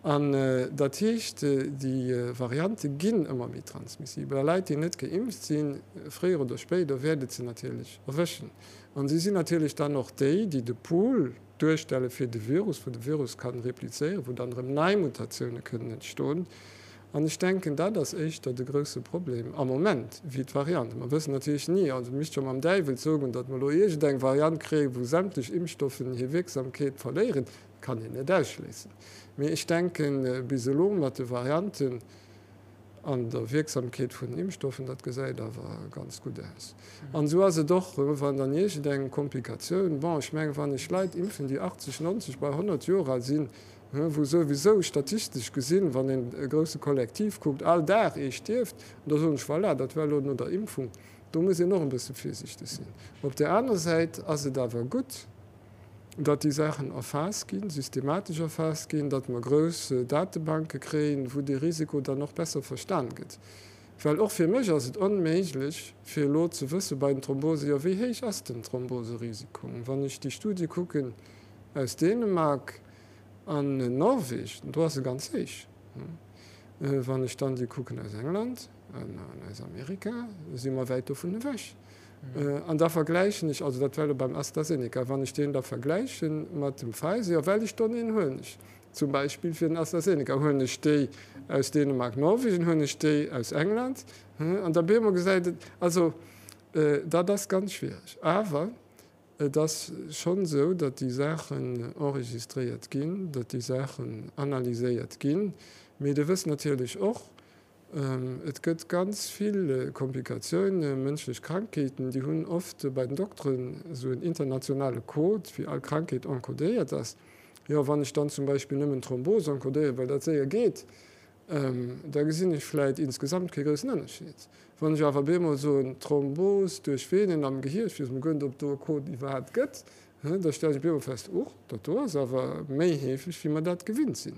An dat heescht, déi Variante ginn ëmmer méi transmissibel a Leit, déi net geimpft sinn, fréier oder spéider wäert et se natierlech erwëschen. An si sinn natierlech dann och déi, déi de Pool duerstelle fir de Virus, wou de Virus kann replizéieren, wou dann erëm nei Mutatioune kënnen entstoen. An ech denken, dat ass éischter de grouse Problem am Moment wéi d'Variante. Mer wëssen natierlech ni, also misst scho mam Däiwel zogoen, datt mer elo iergendeng Variant kréien, wou sämtlech Impfstoffen hir Wierksamkeet verléieren. Kann een net ausschléissen. Mee ech denken, bis elo mat de Varianten an der Wierksamkeet vun den Impfstoffen, dat gesäit awer ganz gutt aus. An esou ass et och, wann dann iergendeng Komplikatioun, bon, ech mengen, wann ech Leit impfen, déi 80, 90, bei 100 Joer al sinn, wou souwisou statistesch gesinn, wann een e grousse Kollektiv kuckt, all Dag ee stierft, an da soen ech, voilà, dat war elo no der Impfung. Do muss een och e bësse virsiichteg sinn. Op där aner Säit ass et awer gutt, datt déi Saachen erfaasst ginn, systematesch erfaasst ginn, datt mer grouss Datebanke kréien, wou dee Risiko dann och besser verstan gëtt. Well och fir mech ass et onméiglech, fir elo ze wësse bei den Thrombose, jo wéi héich ass den Thromboserisiko? Wann ech déi Studie kucken aus Dänemark, An Norwegen, do ass e ganz héich. Wann ech dann déi kucken aus England an aus Amerika, si mer wäit dovun ewech. An da vergläichen ech, also dat war elo beim AstraZeneca, wann ech deen da vergläiche mat dem Pfizer, jo well ech donneen huelen ech. Zum Beispill fir den AstraZeneca. Huelen ech déi aus Dänemark, Norwegen, huelen ech déi aus England? An da bemol gesäit et, also dat ass ganz schwiereg. Awer et ass schonn esou, datt déi Saachen enregistréiert ginn, datt déi Saachen analyséiert ginn. Mee Dir wësst natierlech och, Et gëtt ganz vill Komplikatiounen, mënschlech Krankheeten, déi hunn oft bei den Dokteren esou en internationale Code, wéi all Krankheet encodéiert ass. Jo, wann ech dann zum Beispill nëmmen Thrombos encodéieren, well dat séier geet, da gesinn ech vläit insgesamt kee groussen Ënnerscheed. Wann ech awer bemol soen, Thrombos duerch Venen am Gehier, ech weess emol guer net, ob do e Code iwwerhaapt gëtt, Da stellen ech op eemol fest, Uch, dat do ass awer méi heefeg, wéi mer dat gewinnt sinn.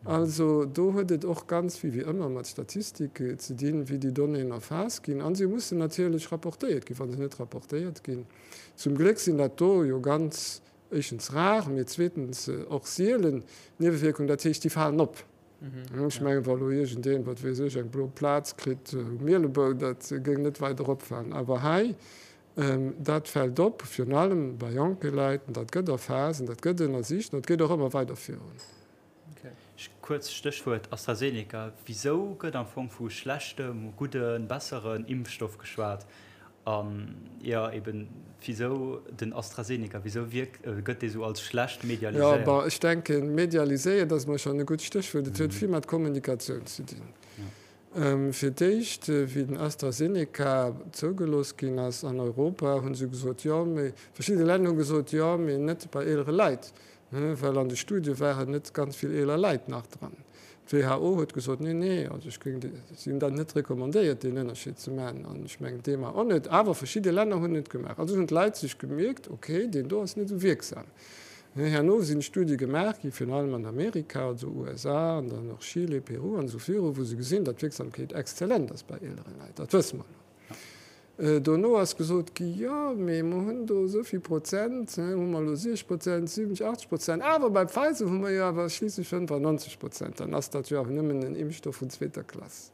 Also do huet et och ganz vill, wéi ëmmer, mat Statistik ze dinn, wéi déi Donnéeën erfaasst ginn. A se mussen natierlech rapportéiert ginn. Wa se net rapportéiert ginn, zum Gléck sinn dat do jo ganz, éischtens rar, mee zweetens och sielen Niewewierkungen, dat heescht, déi falen op. Ech mengen, wa lo iergendeen, wat weess ech, eng blo Plaz kritt um Mielebou, dat géing net weider opfalen. Awer hei Dat fält op, virun allem bei jonke Leit, an dat gëtt erfaasst an dat gëtt ënnersicht an dat geet och ëmmer weider virun. Kuerz Stéchwuert AstraZeneca, Wisou gëtt am Fong vu schlechtem, gudden, besseren Impfstoff geschwat? An jo, eben, wisou den AstraZeneca? Wisou wierkt, gëtt dee sou als schlecht Jo, medialiséiert? bon, ech denken, medialiséiert ass mol schonn e gutt Stéchwuert. Et huet vill mat Kommunikatioun ze dinn. Fir d'éischt, wéi den AstraZeneca zougelooss ginn ass an Europa, hu se gesot, jo, mee verschidde Länner hu gesot, jo, mee net bei eelere Leit, well an de Studie waren net ganz vill eeler Leit nach dran. D'WHO huet gesot, nee, nee, also ech géing, si hunn dat net recommandéiert, deen Ënnerscheed ze maachen, an ech mengen d'EMA och net, awer verschidde Länner hunn et gemaach. Also hunn d'Leit sech gemierkt, okay, deen do ass net esou wierksam. Herno sinn Studie gemaach gi virun allem an Amerika, also USA an dann och Chile, Peru an esou viru, wou se gesinn, datt d'Wierksamkeet exzellent ass bei eelere Leit. Dat wësse mer elo. Dono ass gesot gi, jo, mee mer hunn do esou vill Prozent, hu mer elo 60 Prozent, 70, 80 Prozent, awer bei Pfizer hu mer jo awer schliisslech 95 Prozent, dann ass dat jo awer nëmmen en Impfstoff vun zweeter Klass.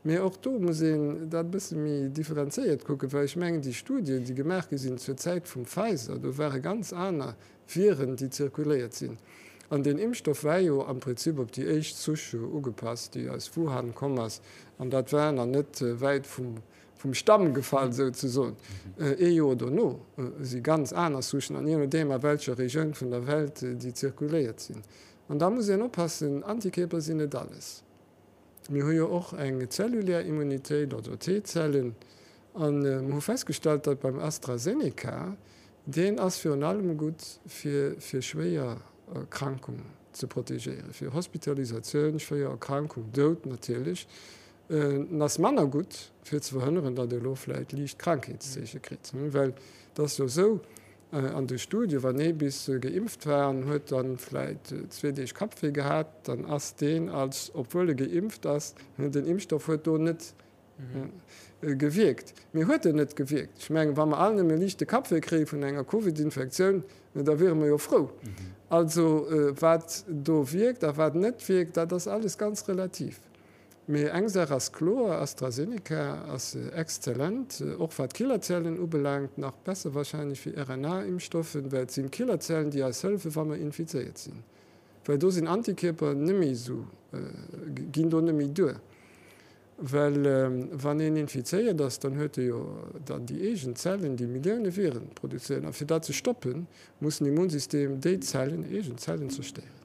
Mee och do muss een dat e bësse méi differenzéiert kucken, well ech mengen, déi Studien, déi gemaach gi sinn zur Zäit vum Pfizer, do ware ganz aner Viren, déi zirkuléiert sinn. An deen Impfstoff war jo am Prinzip op déi éischt Souche ugepasst, déi aus Wuhan komm ass. An dat war nach net wäit vum Stamm gefall, souzesoen. Ee Joer dono si ganz aner Souchen, an jee nodeem a welcher Regioun vun der Welt déi zirkuléiert sinn. An da muss een oppassen, Antikierper sinn net alles. Mir hu jo och eng zellulär Immunitéit, also T-Zellen, a mer hu festgestallt, datt beim AstraZeneca, deen ass virun allem gutt fir fir schwéier Erkrankung ze protegéieren, fir Hospitalisatioun, schwéier Erkrankung, Doud natierlech. En ass manner gutt fir ze verhënneren, datt ee elo vläicht liicht Krankheetszeeche kritt, well et ass jo esou, An de Studie, wann ee bis geimpft war an huet dann vläit zwee Deeg Kappwéi gehat, dann ass deen als, obwuel e geimpft ass, den Impfstoff huet do net gewierkt. Mee huet en net gewierkt? Ech mengen, wa mer all nëmme liichte Kappwéi kréie vun enger Covid-Infektioun, da wiere mer jo frou. Also wat do wierkt a wat net wierkt, dat ass alles ganz relativ. Mee eng Saach ass kloer, AstraZeneca ass exzellent, och wat Killerzellen ubelaangt, nach besser wahrscheinlech wéi RNA-Impfstoffen, well et sinn Killerzellen, déi eis hëllefen, wa mer infizéiert sinn, well do sinn Antikierper net méi esou, ginn do net méi duer, well wann een infizéiert ass, dann huet e jo dann déi eegen Zellen, déi Millioune Viren produzéieren, a fir dat ze stoppen, muss den Immunsystem déi Zellen, eegen Zellen zerstéieren.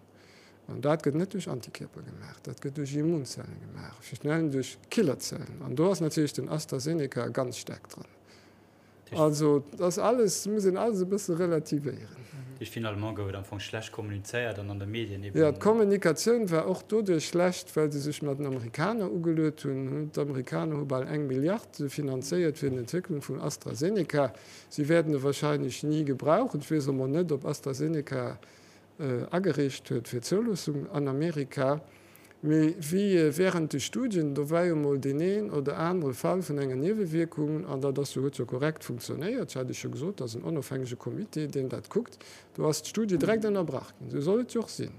An dat gëtt net duerch Antikierper gemaach, dat gëtt duerch Immunzellen gemaach, virun allem duerch Killerzellen. An do ass natierlech den AstraZeneca ganz staark dran. Also dat ass alles, muss een alles e bësse relativéieren. Dat heescht, finalement gouf et am Fong schlecht kommunizéiert an an de Medien eben. Jo, d'Kommunikatioun war och doduerch schlecht, well se sech mat den Amerikaner ugeluet hunn. D'Amerikaner hu bal eng Milliard finanzéiert fir d'Entwécklung vum AstraZeneca. Si wäerten e wahrscheinlech ni gebrauchen. Ech weess emol net, ob AstraZeneca agereecht huet fir d'Zouloossung an Amerika. Mee wéi während de Studien, do war jo mol deen een oder anere Fall vun enger Niewewierkung, an dat ass jo, huet jo korrekt funktionéiert, ech hat Iech jo gesot, dat ass en onofhängege Comité, deen dat kuckt, do ass d'Studie direkt ënnerbrach ginn. Esou soll et jo och sinn.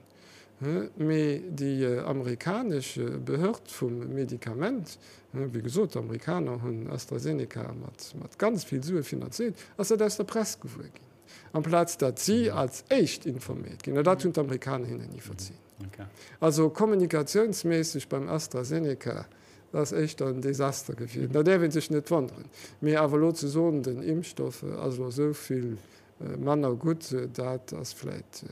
Mee déi amerikanesch Behörd vum Medikament, wéi gesot, d'Amerikaner hunn AstraZeneca mat ganz vill Sue finanziert, ass dat aus der Press gewuer ginn. Amplaz datt si als éischt informéiert ginn. An dat hunn d'Amerikaner hinnen ni verzien. Also kommunikatiounsméisseg beim AstraZeneca, dat ass éischter en Desaster gewiescht. Da däerf ee sech net wonneren. Mee awer elo ze soen, den Impfstoff ass elo esou vill manner gutt, dat ass vläit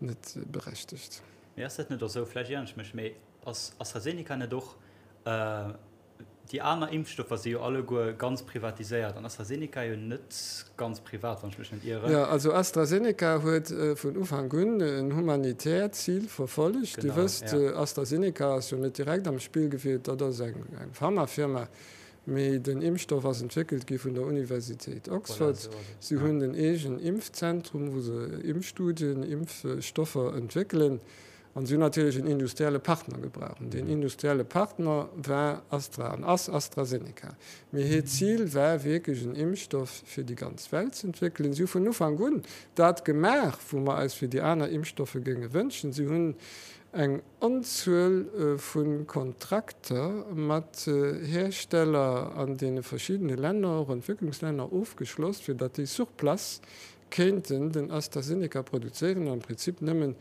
net berechtegt. Mee ass dat net och esou, vläicht ieren ech mech, mee ass AstraZeneca net och Déi aner Impfstoffer si jo alleguer ganz privatiséiert an AstraZeneca jo net ganz privat, wann ech mech net ieren. Jo, also AstraZeneca huet vun Ufank un en humanitäert Zil verfollegt. Dir wësst, AstraZeneca ass jo net direkt am Spill gewielt, dat ass eng Pharmafirma, mee den Impfstoff ass entwéckelt gi vun der Universitéit Oxford. Si hunn en eegen Impfzentrum, wou se Impfstudien, Impfstoffer entwéckelen. An si hunn natierlech en industrielle Partner gebraucht. An deen industrielle Partner war Astra an ass AstraZeneca. Mee hiert Zil war wierklech en Impfstoff fir déi ganz Welt ze entwéckelen. Si hu vun Ufank un dat gemaach, wou mer eis fir déi aner Impfstoffe géinge wënschen. Si hunn eng Onzuel vu Kontrakter mat Hersteller an deene verschiddene Länner, och Entwécklungslänner, ofgeschloss, fir datt déi sur place kéinten den AstraZeneca produzéieren, am Prinzip nëmmen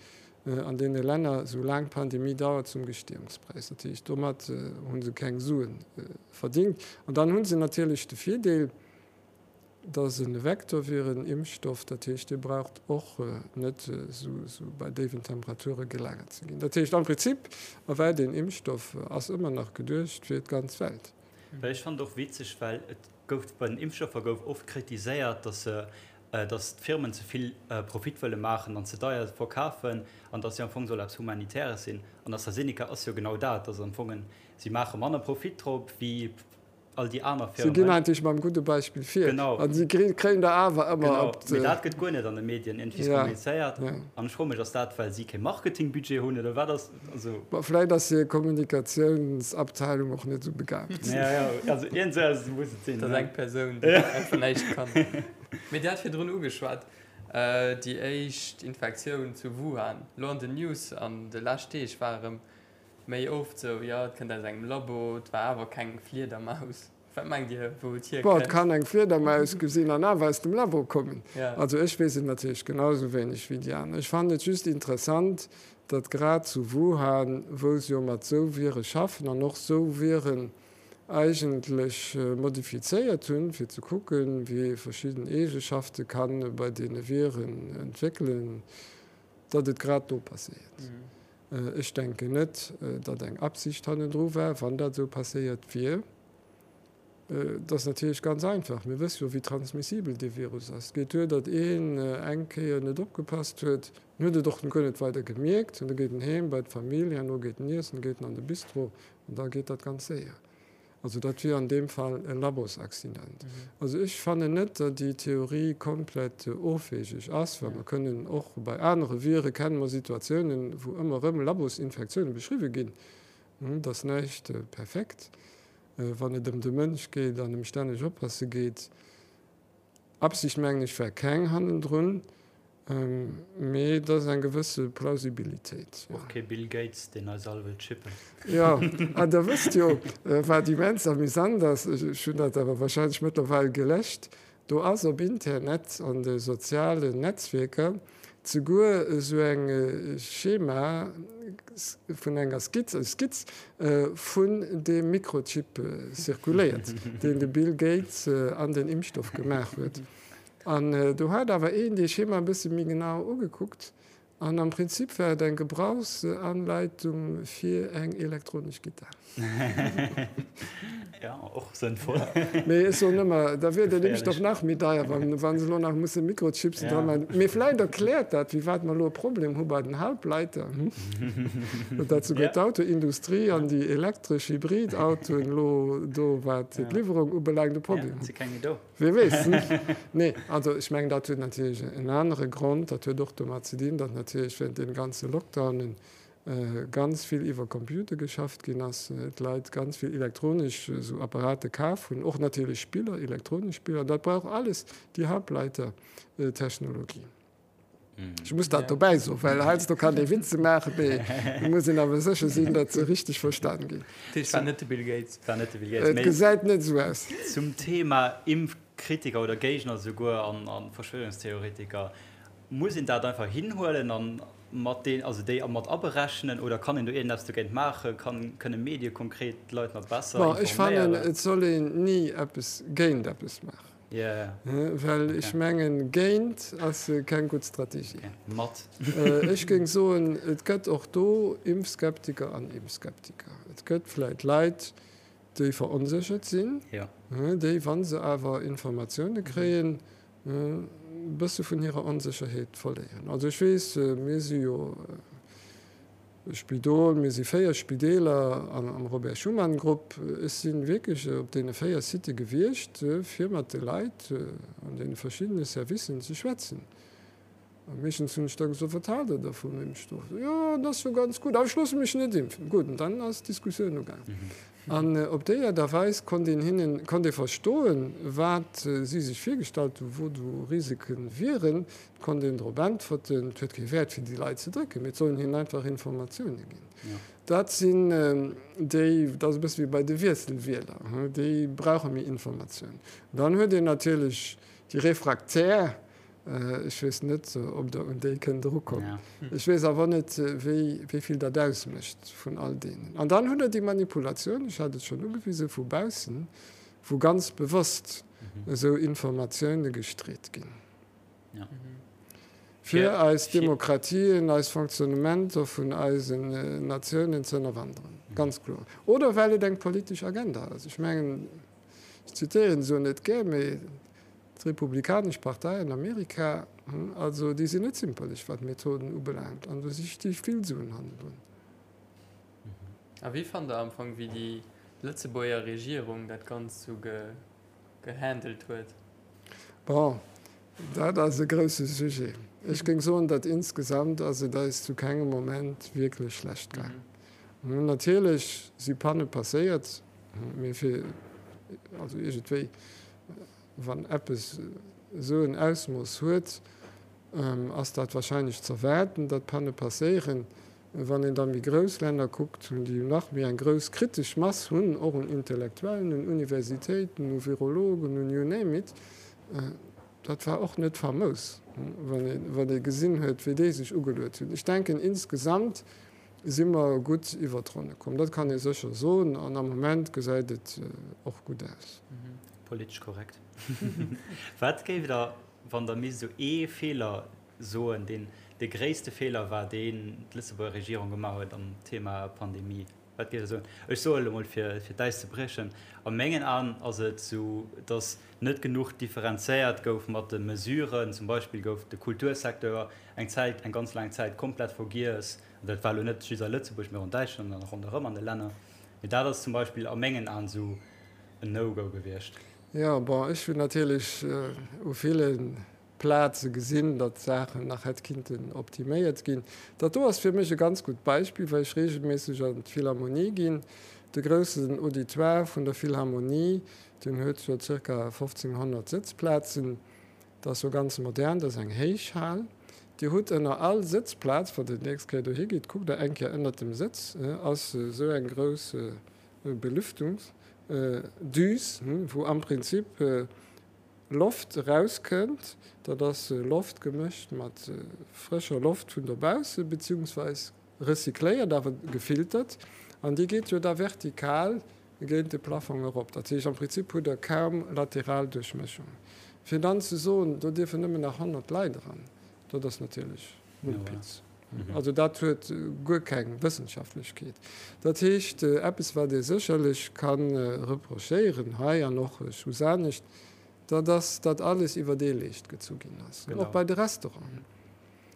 an deene Länner, esou laang d'Pandemie dauert, zum Gestehungspräis. Dat heescht, domat hu se keng Sue verdingt. An dann hu se natierlech de Virdeel, dass e Vektor wier en Impfstoff, dat heescht, dee braucht och net esou bei déiwen Temperature gelagert ze ginn. Dat heescht, am Prinzip ewell deen Impfstoff ass ëmmer nach geduecht fir d'ganz Welt. Well ech fannen et och witzeg, well et gouf bei den Impfstoffer gouf oft kritiséiert, dass se dass d'Firmen ze vill Profit wëlle maachen an ze deier verkafen an dass jo am Fong soll eppes Humanitäres sinn. An AstraZeneca ass jo genau dat, dass am Fong si maache manner Profit drop wéi all déi aner Si ginn Firmen. eigentlech mam gudde Beispill vir Genau. an si kréien der awer ëmmer Genau, op mee dat gëtt guer net an de Medien iergendwéi Ja, kommunizéiert. ja. An ech froe mech, ass dat well si kee Marketingbudget hunn oder wat ass, also. Bon, vläit ass hir Kommunikatiounsabteilung och net esou begaabt. Ja, ja, also iergend esou eppes muss et sinn, Dat ass ne? eng Persoun, déi einfach näischt kann. Mee Dir hat virdrun ugeschwat, déi éischt Infektioun zu Wuhan. Elo an den News an de lescht Deeg war erëm méi oft sou, jo et kënnt aus engem Labo, et war awer keng Fliedermaus. Wat mengt Dir, wou et Bon, et hierkënnt? kann eng Fliedermaus gesinn an awer aus dem Labo kommen. Also ech weess et natierlech genau esou wéineg wéi déi aner. Ech fannen et just interessant, datt grad zu Wuhan, wou se jo mat sou Vire schaffen an och sou Viren eigentlech modifizéiert hunn, fir ze kucken, wéi ee verschidden Eegeschafte ka bei deene Viren entwéckelen, datt et grad do passéiert. Ech denken net, datt eng Absicht hannendru war, wann dat esou passéiert wier. Et ass natierlech ganz einfach, mir wësse jo, wéi transmissibel dee Virus ass. Et geet duer, datt een eng Kéier net opgepasst huet, en huet et och guer net weider gemierkt, an da geet en heem bei d'Famill, herno geet en iessen, geet en an de Bistro An da geet dat ganz séier. Also dat wier an deem Fall e Labosaccident. Also ech fannen net, datt déi Theorie komplett ofwegeg ass, well mer kënnen och bei anere Vire kenne mer Situatiounen, wou ëmmer erëm Labosinfektiounen beschriwwe ginn. Et ass näischt perfekt, wann et ëm de Mënsch geet an ëm stänneg oppasse geet. Absicht mengen ech war keng hannendrun, mee et ass eng gewësse Plausibilitéit, jo. Och kee Bill Gates, deen eis all wëllt chippen. Jo, an der wësst jo, wat immens amüsant ass, ech hunn dat awer wahrscheinlech mëttlerweil geläscht, do ass op Internet, an de sozialen Netzwierker, zeguer esou eng Schema vun enger Skizz, eng Skizz vun deem Mikrochip zirkuléiert, deen de Bill Gates an den Impfstoff gemaach huet. An do hat awer een dee Schema e bësse méi genau ugekuckt an am Prinzip war et eng Gebrauchsanleitung fir eng elektronesch Gittar. Ja, och sënnvoll. Mee ech soen ëmmer, da wier den Impfstoff nach méi deier, wa se elo nach musse Mikrochipsen dra maachen. Mee vläicht erkläert dat, firwat mer elo e Problem hu bei den Halbleiter, datt souguer d'Autoindustrie an déi elektresch Hybridautoen elo do, wat d'Liwwerung ubelaangt, e Problem hunn. Wie weess? Nee, also ech mengen, dat huet natierlech en anere Grond. Dat huet och domat ze dinn, datt natierlech während deem ganze Lockdownen ganz vill iwwer Computer geschafft ginn ass, d'Leit ganz vill elektronesch esou Apparate kaf hunn, och natierlech Spiller, elektronesch Spiller, an dat brauch alles déi Halbleitertechnologie. Ech muss dat dobäi soen, well heiansdo kann ee Witze maachen, mee et muss een awer sécher sinn, datt se richteg verstan ginn. Dat heescht, war net de Bill Gates. War net de Bill Gates. Et gesäit net esou aus. Zum Thema Impf. Kritiker oder Géigner souguer an a Verschwörungstheoretiker. Muss een dat einfach hinhuelen an mat deen, also déi mat aberechnen oder kann een do iergendeppes dogéint maachen? Kann, kënne Medie konkret d'Leit nach besser Bon, ech fannen, informéieren? et soll een ni eppes géint eppes maachen. Yeah. Well ech mengen, géint ass keng gutt Strategie. Okay. Mat. Ech géing soen, et gëtt och do Impfskeptiker an Impfskeptiker. Et gëtt vläit Leit, déi veronséchert sinn, déi, wa se awer Informatioune kréien, e bësse vun hirer Onsécherheet verléieren. Also ech weess, mir si jo e Spidol, mir si 4 Spideeler am Robert Schuman Grupp. Ech si wierklech op deene 4 Sitte gewiescht, fir mat de Leit an deene verschiddene Servicen ze schwätzen. A meeschtens hunn ech da gesot, Wat haalt Der da vum Impfstoff? Jo, dat ass jo ganz gutt, awer ech loosse mech net impfen. Gutt, an dann ass d'Diskussioun ugaangen. An op déi Aart a Weis konnt een hinnen, konnt ee verstoen, wat si sech virgestallt hunn, wou do Risike wieren. Et konnt een drop äntwerten. Et huet kee Wäert, fir déi Leit ze drécken, mee et sollen hinnen einfach Informatioune ginn. Dat sinn déi, dat ass e bësse wéi bei de Wiesselwieler, déi brauche méi Informatioun. Dann huet een natierlech déi Refraktär, Ech weess net, ob Der un déi kënnt erukommen. Ech weess awer net, wéi vill dat ausmécht vun all deenen. An dann hutt Der déi Manipulatioun, ech hat et schonn ugewisen, vu baussen, wou ganz bewosst esou Informatioune gestreet ginn, fir eis Demokratien, eis Fonctionnementer vun eisen Natiounen ze ënnerwanderen. Ganz kloer. Oder well et eng politesch Agenda ass. Ech mengen, ech zitéieren esou net gär, mee D'Republikanesch Partei an Amerika, also déi sinn net zimperlech wat d'Methoden ubelaangt an do sti vill Suen hannendrun. A wéi fannt der am Fong wéi déi Lëtzebuerger Regierung dat Ganzt sou gehandelt huet? Bon, dat ass e grousse Sujet. Ech géing soen, datt insgesamt ass et eis zu kengem Moment wierklech schlecht gaang. Natierlech si Panne passéiert, mee fir also iergendwéi Wann eppes esou en Ausmooss huet, ass dat warscheinlech z'erwaarden, datt Panne passéieren. Wann een da méi grouss Länner kuckt, déi nach méi eng grouss kritesch Mass hunn, och un Intellektuellen, un Universitéiten, u Virologen, un you name it, dat war och net famous, wann ee gesinn huet, wéi déi sech ugeluet hunn. Ech denken, insgesamt si mer gutt iwwer d'Ronne komm. Dat kann ee sécher soen an am Moment gesäit et och gutt aus. Politesch korrekt. Wat géift Der, wann Der misst esou ee Feeler soen, deen de gréisste Feeler war, deen d'Lëtzebuerger Regierung gemaach huet am Thema Pandemie? Wat géift Der soen? Ech soe elo mol, fir d'Äis ze briechen, a mengen Aen ass et esou, datt net genuch differenzéiert gouf mat de Mesuren. Zum Beispill gouf de Kultursecteur eng Zäit, eng ganz laang Zäit komplett vergiess. An dat war elo net just a Lëtzebuerg, mee och an Däitschland an ronderëm an de Länner. Mee dat ass zum Beispill a mengen Aen esou en No-Go gewiescht. Jo, bon, ech hunn natierlech u ville Plaze gesinn, datt Saachen nach hätt kinnten optiméiert ginn. Dat do ass fir mech e ganz gutt Beispill, well ech reegelméisseg an d'Philharmonie ginn. De groussen Auditoire vun der Philharmonie, deen huet jo zirka 1.500 Sëtzplazen. Dat ass jo ganz modern, dat ass eng héich Hal. Dir hutt ënner all Sëtzplaz, wann Der déi nächst Kéier dohi gitt, kuckt Der eng Kéier ënnert dem Sëtz, ass esou eng grouss Belüftungsdüs, wou am Prinzip Loft erauskënnt. Dat ass Loft gemëscht mat frëscher Loft vun dobausse beziehungsweis recycléiert, awer gefiltert. An déi geet jo da vertikal géint de Plafong erop. Dat heescht, am Prinzip hutt Der kaum lateral Duerchmëschung. Fir dann ze soen, do dierfen nëmmen nach 100 Leit eran, dat ass natierlech Mumpitz. Also dat huet guer keng Wëssenschaftlechkeet. Dat heescht, eppes wat ee sécherlech ka reprochéieren hei an och soss anescht, dat ass, datt alles iwwer ee Leescht gezu ginn ass, och bei de Restauranten.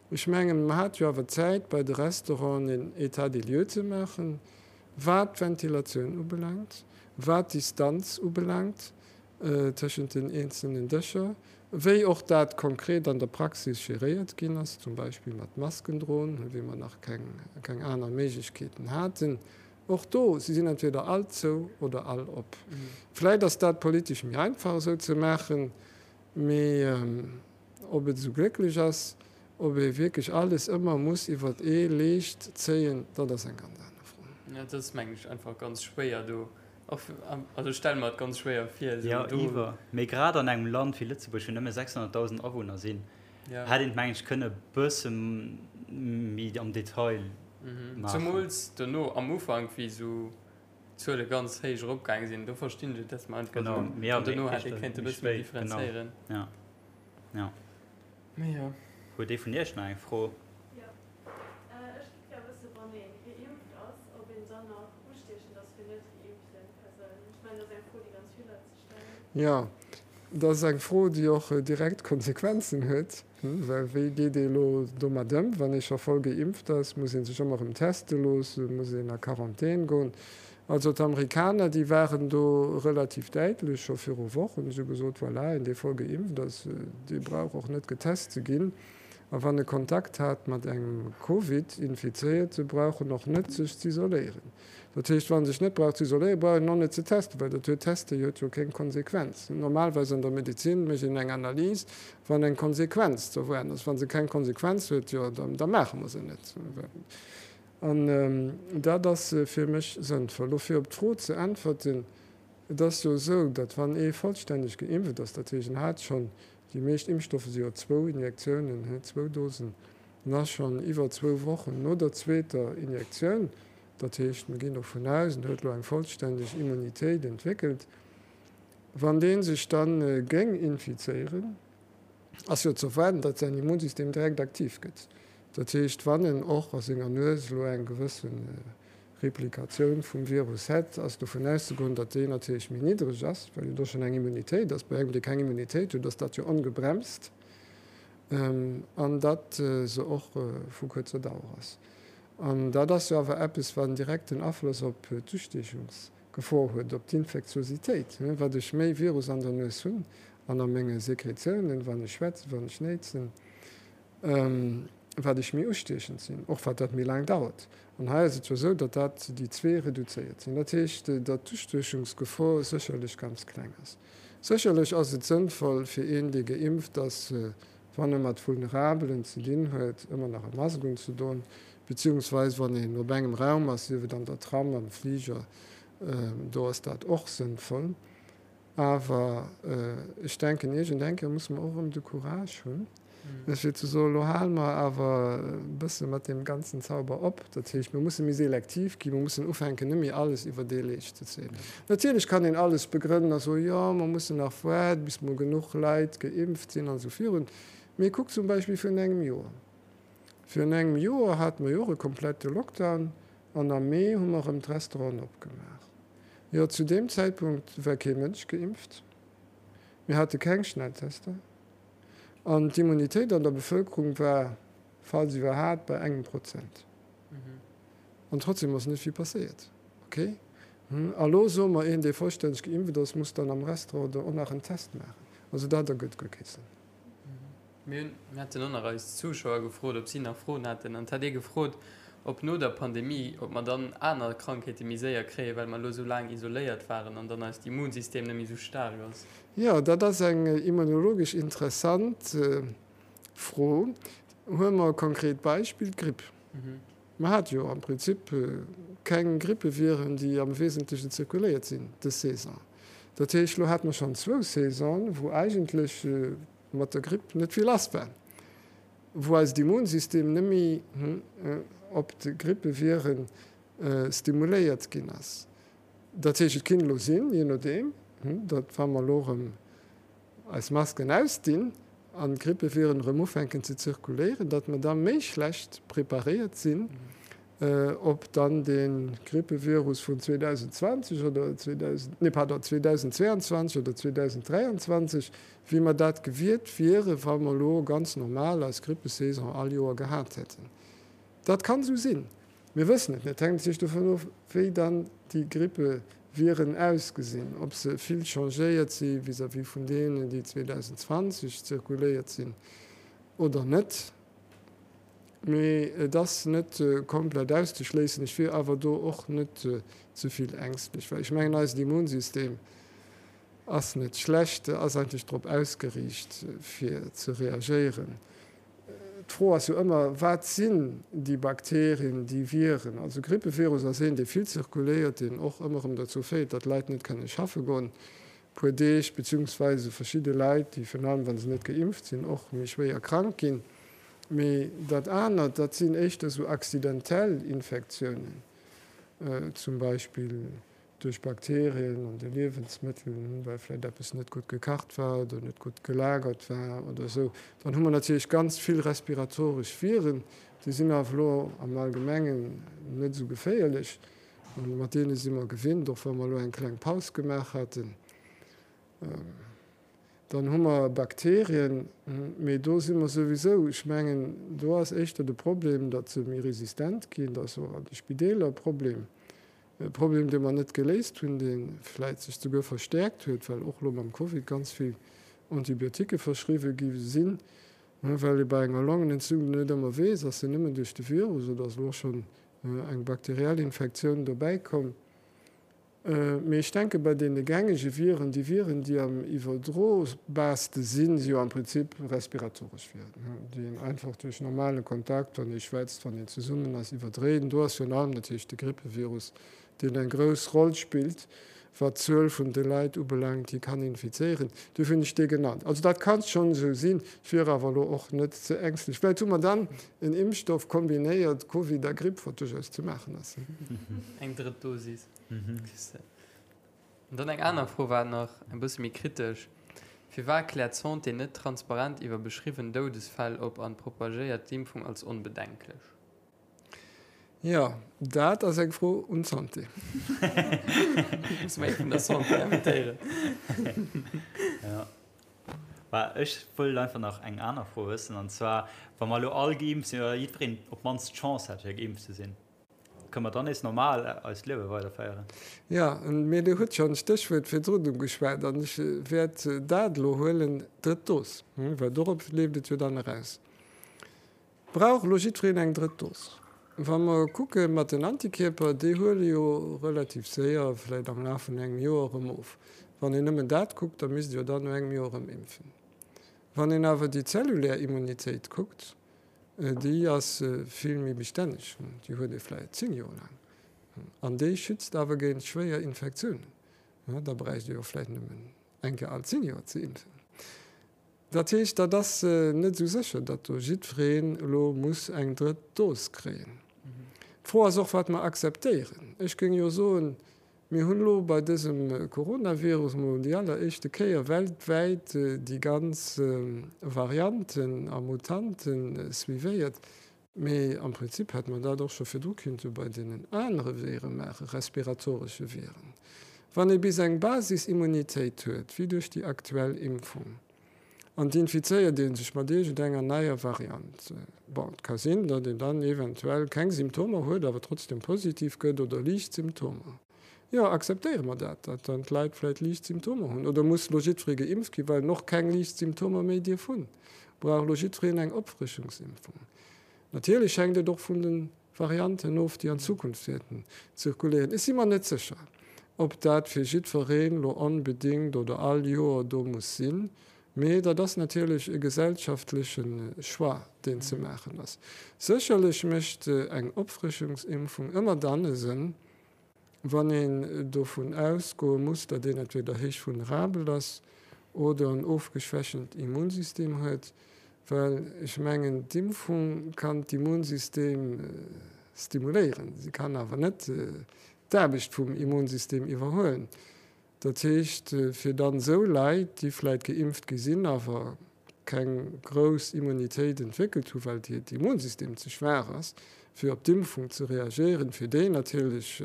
Ech mengen, mer hate jo awer Zäit, bei de Restauranten een État des lieux ze maachen, wat d'Ventilatioun ubelaangt, wat d'Distanz ubelaangt tëschent den eenzelnen Dëscher, wéi och dat konkret an der Praxis geréiert ginn ass, zum Beispill mat Masken droen, wéi mer nach keng aner Méiglechkeeten haten. Och do, si sinn entweder all zou oder all op. Vläicht ass dat politesch méi einfach esou ze maachen, mee ob et esou glécklech ass, ob ee wierklech alles ëmmer muss iwwert ee Leescht zéien, dat ass eng ganz aner Fro. Jo, dat ass, mengen ech, einfach ganz schwéier do. Och, also ech stelle mer et ganz schwéier vir, esou Jo, iwwer. Mee grad an engem Land wéi Lëtzebuerg, wou nëmme 600.000 Awunner sinn, hätt een et, mengen ech, kënne e bësse méi am Detail maachen. Zemools dono am Ufank, wéi esou d'Zuele ganz héich eropgaange sinn, do verstinn ech et, dass mer einfach esou, an dono hätt ee kéinte e bësse méi differenzéieren. Genau, jo. Mee jo. Huet ee vun Iech nach eng Fro? Jo, ech giff gär wëssen, wann ee geimpft ass, ob een dann nach ustiechend ass fir net geimpften Persounen. Ech mengen, dat ass eng Fro, déi ganz vill Leit sech stellen. Jo, dat ass eng Fro, déi och direkt Konsequenzen huet, well wéi geet ee elo domat ëm, wann ee scho voll geimpft ass? Muss ee sech ëmmer erëm teste loossen? Muss een a Quarantän goen? Also d'Amerikaner, déi waren do relativ däitlech scho viru Wochen, si hu gesot, voilà, een dee voll geimpft ass, dee brauch och net getest ze ginn. A wann e Kontakt hat mat engem Covid-Infizéierte brauch en och net sech z'isoléieren. Dat heescht, wa sech net brauch z'isoléieren, brauch een och net ze testen, well dat huet, Teste huet jo keng Konsequenz. Normalerweis an der Medezin mécht een eng Analys, wann eng Konsequenz ze erwaarden ass. Wa se keng Konsequenz huet, jo da maache mer se net. An dat ass fir mech sënnvoll. Lo fir op d'Fro ze äntwerten, Et ass jo esou, datt wann ee vollstänneg geimpft ass, dat heescht en hat schonn, déi meescht Impfstoffe si jo zwou Injektiounen, zwou Dosen, en ass schonn iwwer zwou Wochen no der zweeter Injektioun, dat heescht mir ginn dovun aus, en huet elo eng vollstänneg Immunitéit entwéckelt, wann dee sech da géing infizéieren, ass jo ze erwaarden, datt säin Immunsystem direkt aktiv gëtt. Dat heescht, wann en och a senger Nues elo eng gewësse Replikatioun vum Virus hätt, ass dovun auszegoen, datt déi natierlech méi niddreg ass, well jo do schonn eng Immunitéit ass. Bei engem, dee keng Immunitéit huet, ass dat jo ongebremst, an datt se och vu kuerzer Dauer ass. An dat ass jo awer eppes, wat en direkten Afloss op d'Ustiechungs Gefor huet op d'Infektiositéit, wat ech méi Virus an der Nues hunn an a menge Sekretiounen, wann ech schwätzen, wann ech néitsen, wat ech méi ustiechend sinn, och wat dat méi laang dauert. An hei ass et jo esou, datt dat déi zwee reduzéiert sinn. Dat heescht, datt d'Ustiechungsgefor sécherlech ganz kleng ass. Sécherlech ass et sënnvoll fir een, dee geimpft ass, wann e mat Vulnerabelen ze dinn huet, ëmmer nach e Mask unzedoen, beziehungsweise wann een op engem Raum ass, sief et an der Tram, am Fliger, do ass dat och sënnvoll. Awer ech denken, iergend eng Kéier musse mer och erëm de Courage hunn, fir ze soen, elo hale mer awer e bësse mat deem ganzen Zauber op. Dat heescht, mir musse méi selektiv ginn, mir mussen ufänken, net méi alles iwwer dee Leescht ze zéien. Natierlech kann een alles begrënnen a soen, jo, mer mussen nach waarden, bis mol genuch Leit geimpft sinn an esou virun. Mee kuckt zum Beispill virun engem Joer. Virun engem Joer hate mer jo och e komplette Lockdown an am Mee hu mer erëm d'Restauranten opgemaach. Jo, zu deem Zäitpunkt war kee Mënsch geimpft, mir hate keng Schnelltester an d'Immunitéit an der Bevëlkerung war, falls iwwerhaapt, bei engem Prozent. An trotzdem ass net vill passéiert. Ok. A lo soe mer, een, dee vollstänneg geimpft ass, muss dann am Restaurant och nach en Test maachen. Also dat ergëtt guer kee Sënn. Mir hunn, mir haten och nach eis Zuschauer gefrot, ob si nach Froen haten. An et hat ee gefrot, ob no der Pandemie, ob mer dann aner Krankheete méi séier kréien, well mer elo esou laang isoléiert waren an dann eist Immunsystem net méi esou staark ass. Jo, dat ass eng immunologesch interessant Fro. Huele mer e konkret Beispill, d'Gripp. Mer hate jo am Prinzip keng Grippeviren, déi am Wesentlechen zirkuléiert sinn dës Saison. Dat heescht, elo hate mer schonn zwou Saisonen, wou eigentlech mat der Gripp net vill lass war, wou eist Immunsystem net méi op d'Grippeviren stimuléiert ginn ass. Dat heescht, et kinnt elo sinn, jee nodeem, datt wa mer elo erëm eis Masken ausdinn an d'Grippeviren erëm ufänken ze zirkuléieren, datt mer da méi schlecht preparéiert sinn op dann dee Grippevirus vun 2020 oder 2000, nee pardon, 2022 oder 2023, wéi mer dat gewiert wiere wa mer elo ganz normal eis Grippesaison all Joer gehat hätten. Dat kann esou sinn. Mir wëssen et net. Et hänkt natierlech dovun of, wéi dann déi Grippeviren ausgesinn, ob se vill changéiert si vis-à-vis vun deenen, déi 2020 zirkuléiert sinn oder net. Mee et ass net komplett auszeschléissen. Ech wier awer do och net ze vill ängstlech, well ech mengen, eisen Immunsystem ass net schlecht, ass eigentlech drop ausgeriicht, fir ze reagéieren. D'Fro ass jo ëmmer, Wat sinn déi Bakterien, déi Viren? Also Grippevirus ass een, dee vill zirkuléiert, deen och ëmmer erëm dozou féiert, datt Leit net kënne schaffe goen e puer Deeg, beziehungsweise verschidde Leit, déi virun allem, wa se net geimpft sinn, och méi schwéier krank ginn. Mee dat anert, dat sinn éischter esou accidentell Infektiounen, zum Beispill duerch Bakterien an de Liewensmëttel, well vläicht eppes net gutt gekacht war oder net gutt gelagert war oder esou. Dann hu mer natierlech ganz vill respiratoresch Viren, déi sinn awer elo am Allgemengen net esou geféierlech. Mat deene si mer gewinnt, och wa mer elo eng kleng Paus gemaach haten. Dann hu mer Bakterien, mee do si mer souwisou, ech mengen, do ass éischter de Problem, datt se méi resistent ginn, dat ass och an de Spideeler e Problem. E Problem, dee mer net geléist hunn, dee vläit sech souguer verstäerkt huet, well och elo mam Covid ganz vill Antibioticke verschriwwe gi sinn, well ee bei enger Longenentzündung net ëmmer weess, ass se nëmmen duerch de Virus oder ass elo och schonn eng bakteriell Infektioun dobäi komm. Mee ech denke bei deene gängege Viren, déi Viren, déi am iwwerdrobarste sinn, si jo am Prinzip respiratoresch Viren, déi een einfach duerch normale Kontakt, wann ee schwätzt, wann een zesummen ass, iwwerdréit. Do ass virun allem natierlech de Grippevirus, deen eng grouss Roll spillt, wat d'Zuel vun de Leit ubelaangt, déi kann infizéieren. Duerfir hunn ech dee genannt. Also dat kann schonn esou sinn. Ech wier awer elo och net ze ängstlech. Vläicht hu mer dann en Impfstoff kombinéiert, Covid a Gripp, wat duerchaus ze maachen ass. Eng drëtt Dosis. An dann eng aner Fro war nach e bësse méi kritesch, Firwat kläert d'Santé net transparent iwwer beschriwwen Doudesfäll op an propagéiert d'Impfung als onbedenklech? Jo, dat ass eng Fro un d'Santé. Musse mer ee vun der Santé invitéieren. Jo. Bah, ech wëllt einfach nach eng aner Fro wëssen, an zwar, wa mer elo all geimpft sinn, oder jiddwereen op d'mannst d'Chance hätt fir geimpft ze sinn, Kënne mer dann nees normal eist Liewe weiderféieren? Jo, mee Dir hutt schonn d'Stéchwuert virdrun ugeschwat an ech wäert dat elo huelen, d'drëtt Dos, well dorop leeft et jo dann eraus. Brauch elo jiddwereen eng drëtt Dos? Wa mer kucke mat den Antikierper, déi huele jo relativ séier, vläicht am Laf vun engem Joer, erëm of. Wann een nëmmen dat kuckt, da misst ee jo dann no engem Joer erëm impfen. Wann een awer déi zellulär Immunitéit kuckt, Déi ass vill méi bestänneg, déi huet ee vläicht 10 Joer laang an déi schützt awer géint schwéier Infektiounen. Da bräicht ee jo vläicht nëmmen eng Kéier all 10 Joer ze impfen. Dat heescht, dat ass net esou sécher, datt do jiddwereen elo muss eng drëtt Dos kréien. D'Fro ass och, wat mer akzeptéieren. Ech géing jo soen, Mir hunn elo bei dësem Coronavirus emol déi alleréischte Kéier weltwäit déi ganz Varianten a Mutante suivéiert. Mee am Prinzip hätte mer dat och scho virdru kinnte bei deenen anere Vire maachen, respiratoresche Viren. Wann ee bis eng Basisimmunitéit huet, wéi duerch déi aktuell Impfung, an et infizéiert ee sech mat iergendenger neier Variant, bon, et ka sinn, datt een dann eventuell keng Symptomer huet, awer trotzdem positiv gëtt oder liicht Symptomer. Jo, akzeptéiere mer dat, datt dann d'Leit vläicht liicht Symptomer hunn? Oder muss elo jiddweree geimpft ginn, well en och keng liicht Symptomer méi dierf hunn? Brauch elo jiddwereen eng Opfrëschungsimpfung? Natierlech hänkt et och vun de Varianten of, déi an Zukunft wäerten zirkuléieren. Ech si mer net sécher, ob dat fir jiddwereen elo onbedéngt oder all Joer do muss sinn, mee dat ass natierlech e gesellschaftleche Choix, deen ze maachen ass. Sécherlech mécht eng Opfrëschungsimpfung ëmmer dann e Sënn, Wann een dovun ausgoe muss, datt een entweder héich vulnerabel ass oder en ofgeschwächent Immunsystem huet, well ech mengen, d'Impfung kann d'Immunsystem stimuléieren, se kann awer net d'Aarbecht vum Immunsystem iwwerhuelen. Dat heescht, fir dann esou Leit, déi vläit geimpft gi sinn, awer keng grouss Immunitéit entwéckelt hu well hiert Immunsystem ze schwaach ass, fir op d'Impfung ze reagéieren, fir déi natierlech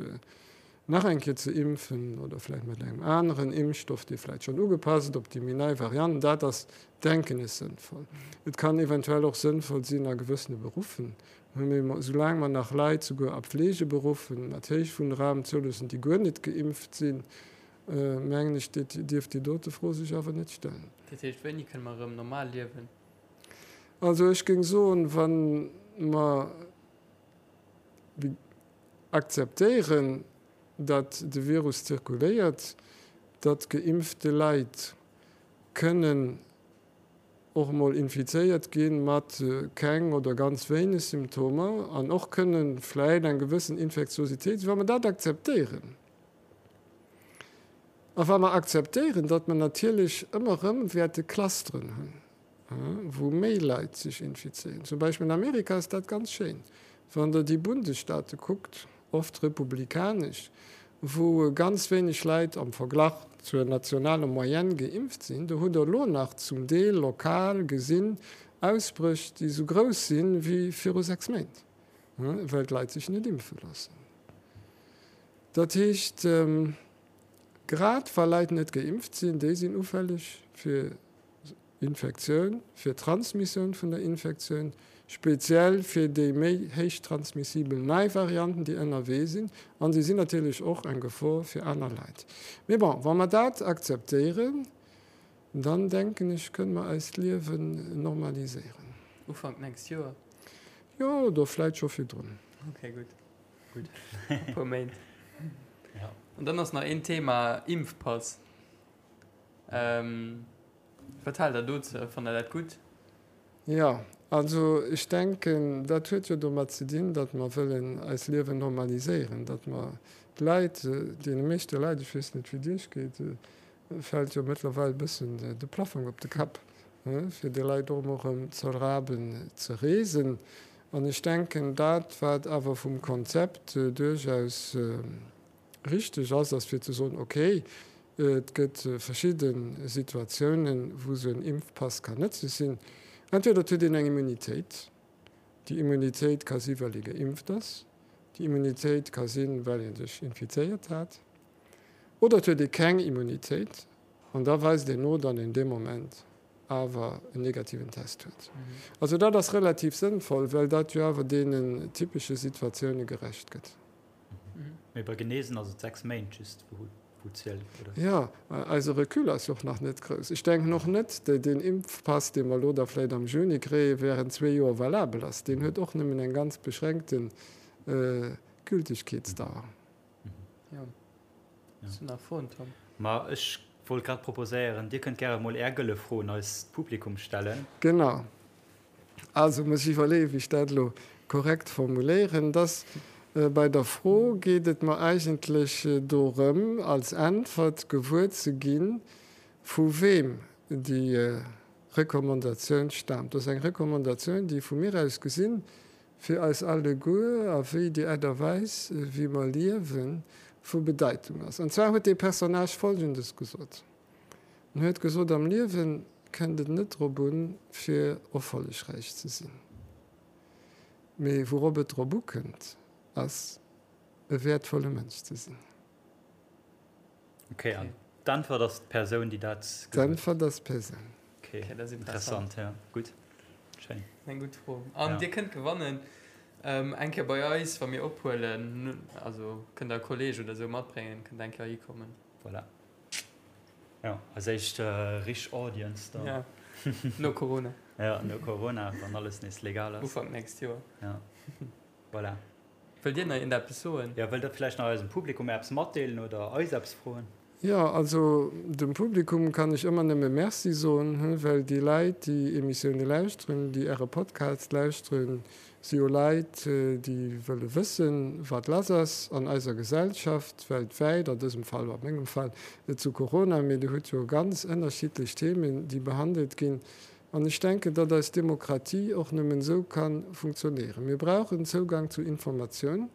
nach eng Kéier ze impfen oder vläicht mat engem aneren Impfstoff, dee vläicht schonn ugepasst op déi méi nei Variant, dat ass, denken ech, sënnvoll. Et kann eventuell och sënnvoll sinn a gewëssene Beruffen, mee soulaang mer nach Leit, souguer a Pflegeberuffen, mat héich vulnerablen zouloossen, déi guer net geimpft sinn, mengen ech, dierf déi dote Fro sech awer net stellen. Dat heescht, wéini kënne mer erëm normal liewen? Also ech géing soen, wa mer akzeptéieren, datt de Virus zirkuléiert, datt geimpfte Leit kënnen. och emol infizéiert gi mat keng oder ganz wéineg Symptomer an och kënne vläit eng gewëssen Infektiositéit sinn, wa mer dat akzeptéieren a wa mer akzeptéieren, datt mer natierlech ëmmer erëm wäerte Clusteren hunn, wou méi Leit sech infizéieren. Zum Beispill an Amerika ass dat ganz schéin, wann Der déi Bundesstaate kuckt, oft republikanesch, wou ganz wéineg Leit am Verglach zur nationaler Moyenne geimpft sinn. Do hutt Der elo nach zum Deel lokal gesinn Ausbréch, déi esou grouss sinn wéi viru 6 Méint, well d'Leit sech net impfe loossen. Dat heescht, grad wa Leit net geimpft sinn, déi sinn ufälleg fir Infektioun, fir d'Transmissioun vun der Infektioun, speziell fir déi méi héich transmissibel nei Varianten, déi ënnerwee sinn, a si sinn natierlech och eng Gefor fir aner Leit. Mee bon, wa mer dat akzeptéieren, dann denken ech, kënne mer eist Liewen normaliséieren. Ufank d'nächst Joer? Jo, oder vläit scho virdrun. Okay, gutt. Gutt. E puer Méint. An dann ass nach een Thema, Impfpass. Wat haalt der dozou? Fannt der dat gutt? Jo, also ech denken, dat huet jo domat ze dinn, datt mer wëllen eis Liewen normaliséieren, datt mer d'Leit, deene meeschte Leit, ech weess net wéi et Iech geet, fält jo mëttlerweil e bëssen de Plaffong op de Kapp, fir de Leit och emol erëm ze erlaben ze reesen. An ech denken, dat wat awer vum Konzept duerchaus Richteg ass, ass fir ze soen, okay, et gëtt verschidde Situatiounen, wou esou en Impfpass kann nëtzlech sinn. Entweder et huet een eng Immunitéit, déi Immunitéit ka si well ee geimpft ass, déi Immunitéit ka sinn, well ee sech infizéiert hat, oder et huet ee keng Immunitéit an da weist een no, datt een dee Moment awer en negativen Test huet. Also dat ass relativ sënnvoll, well dat jo awer deenen typesche Situatioune gerecht gëtt. Mee bei Genesen ass et 6 Méint just wou zielt, oder? Jo, eise Recul ass jo och nach net grouss. Ech denken och net, datt deen Impfpass, dee mer elo da vläicht am Juni kréien, während zwee Joer valabel ass. Deen huet och nëmmen eng ganz beschränkte Gültegkeetsdauer. Jo. Hues du nach Froen, Tom? Ma ech wollt grad proposéieren, Dir kënnt gäre mol Är gëlle Fro un eist Publikum stellen. Genau. Also muss ech iwwerleeën, wéi ech dat elo korrekt formuléieren. Dass bei der Fro geet et mer eigentlech dorëm, als Äntwert gewuer ze ginn, vu weem déi Recommandatioun staamt. Dat ass eng Recommandatioun, déi vu mir aus gesinn fir eis alleguer a wéi déi Aart a Weis, wéi mer liewen, vu Bedeitung ass. An zwar huet dee Personnage Folgendes gesot. En huet gesot, Am Liewe kënnt et net drop un, fir erfollegräich ze sinn, mee wourop et drop ukënnt, ass, e wäertvolle Mënsch ze sinn. Ok, an d'Äntwert ass d'Persoun, déi dat gesot huet? D'Äntwert ass d'Persoun. Ok, dat ass interessant, jo, gutt, schéin. Eng gutt Fro. An Dir kënnt gewannen eng Kéier bei eis, wa mir ophuelen, also kënnt Der e Kolleeg oder esou matbréngen, kënnt eng Kéier hikommen. Voilà. Jo, eis éischt richteg Audience dann. Ja, no Corona. Ja, no Corona, wann alles nees legal ass. Ufank nächst Joer. Ja, voilà. Wëllt Dir nach iergendeppes soen? Jo, wëllt Der vläicht nach eisem Publikum eppes matdeelen oder eis eppes froen? Jo, also dem Publikum kann ech ëmmer nëmme Merci soen, well déi Leit, déi Emissioune lauschteren, déi Äre Podcast lauschteren, si jo Leit, déi wëlle wëssen, wat lass ass an eiser Gesellschaft, weltwäit, an dësem Fall, a mengem Fall, zu Corona. Mee Dir hutt jo ganz ënnerschiddlech Themen, déi behandelt ginn. An ech denken, datt eis Demokratie och nëmmen esou ka funktionéieren. Mir brauchen Zougang zu Informatioun.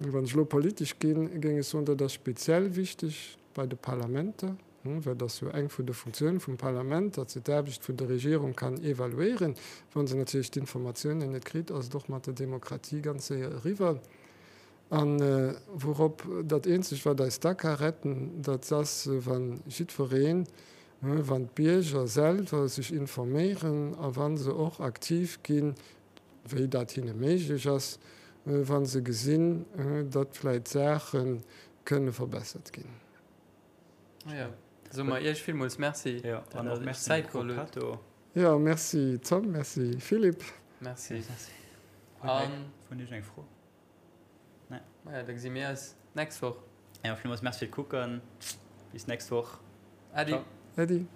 Wann ech elo politesch ginn, géing ech soen, dat ass speziell wichteg bei de Parlamenter. Well et ass jo eng vun de Funktioune vum Parlament, datt se d'Aarbecht vun der Regierung kann evaluéieren. Wa se natierlech d'Informatiounen net kritt, ass et och mat der Demokratie ganz séier eriwwer. A wourop dat eenzegt, wat eis da ka retten, dat ass, wa jiddwereen, wann d'Bierger selwer sech informéieren a wa se och aktiv ginn, wéi dat hinne méiglech ass, wa se gesinn, datt vläicht Saache kënne verbessert ginn. Ja, soe mer Iech villmools Merci, ja, an och Merci Zäit geholl hutt. Ja, Merci Tom, Merci Philippe. Merci. An vun Iech eng Fro? Nee. Maja, da gesi mir eis d'nächst Woch. Ja, villmools Merci fir d'Kucken. Bis d'nächst Woch. Äddi. Äddi.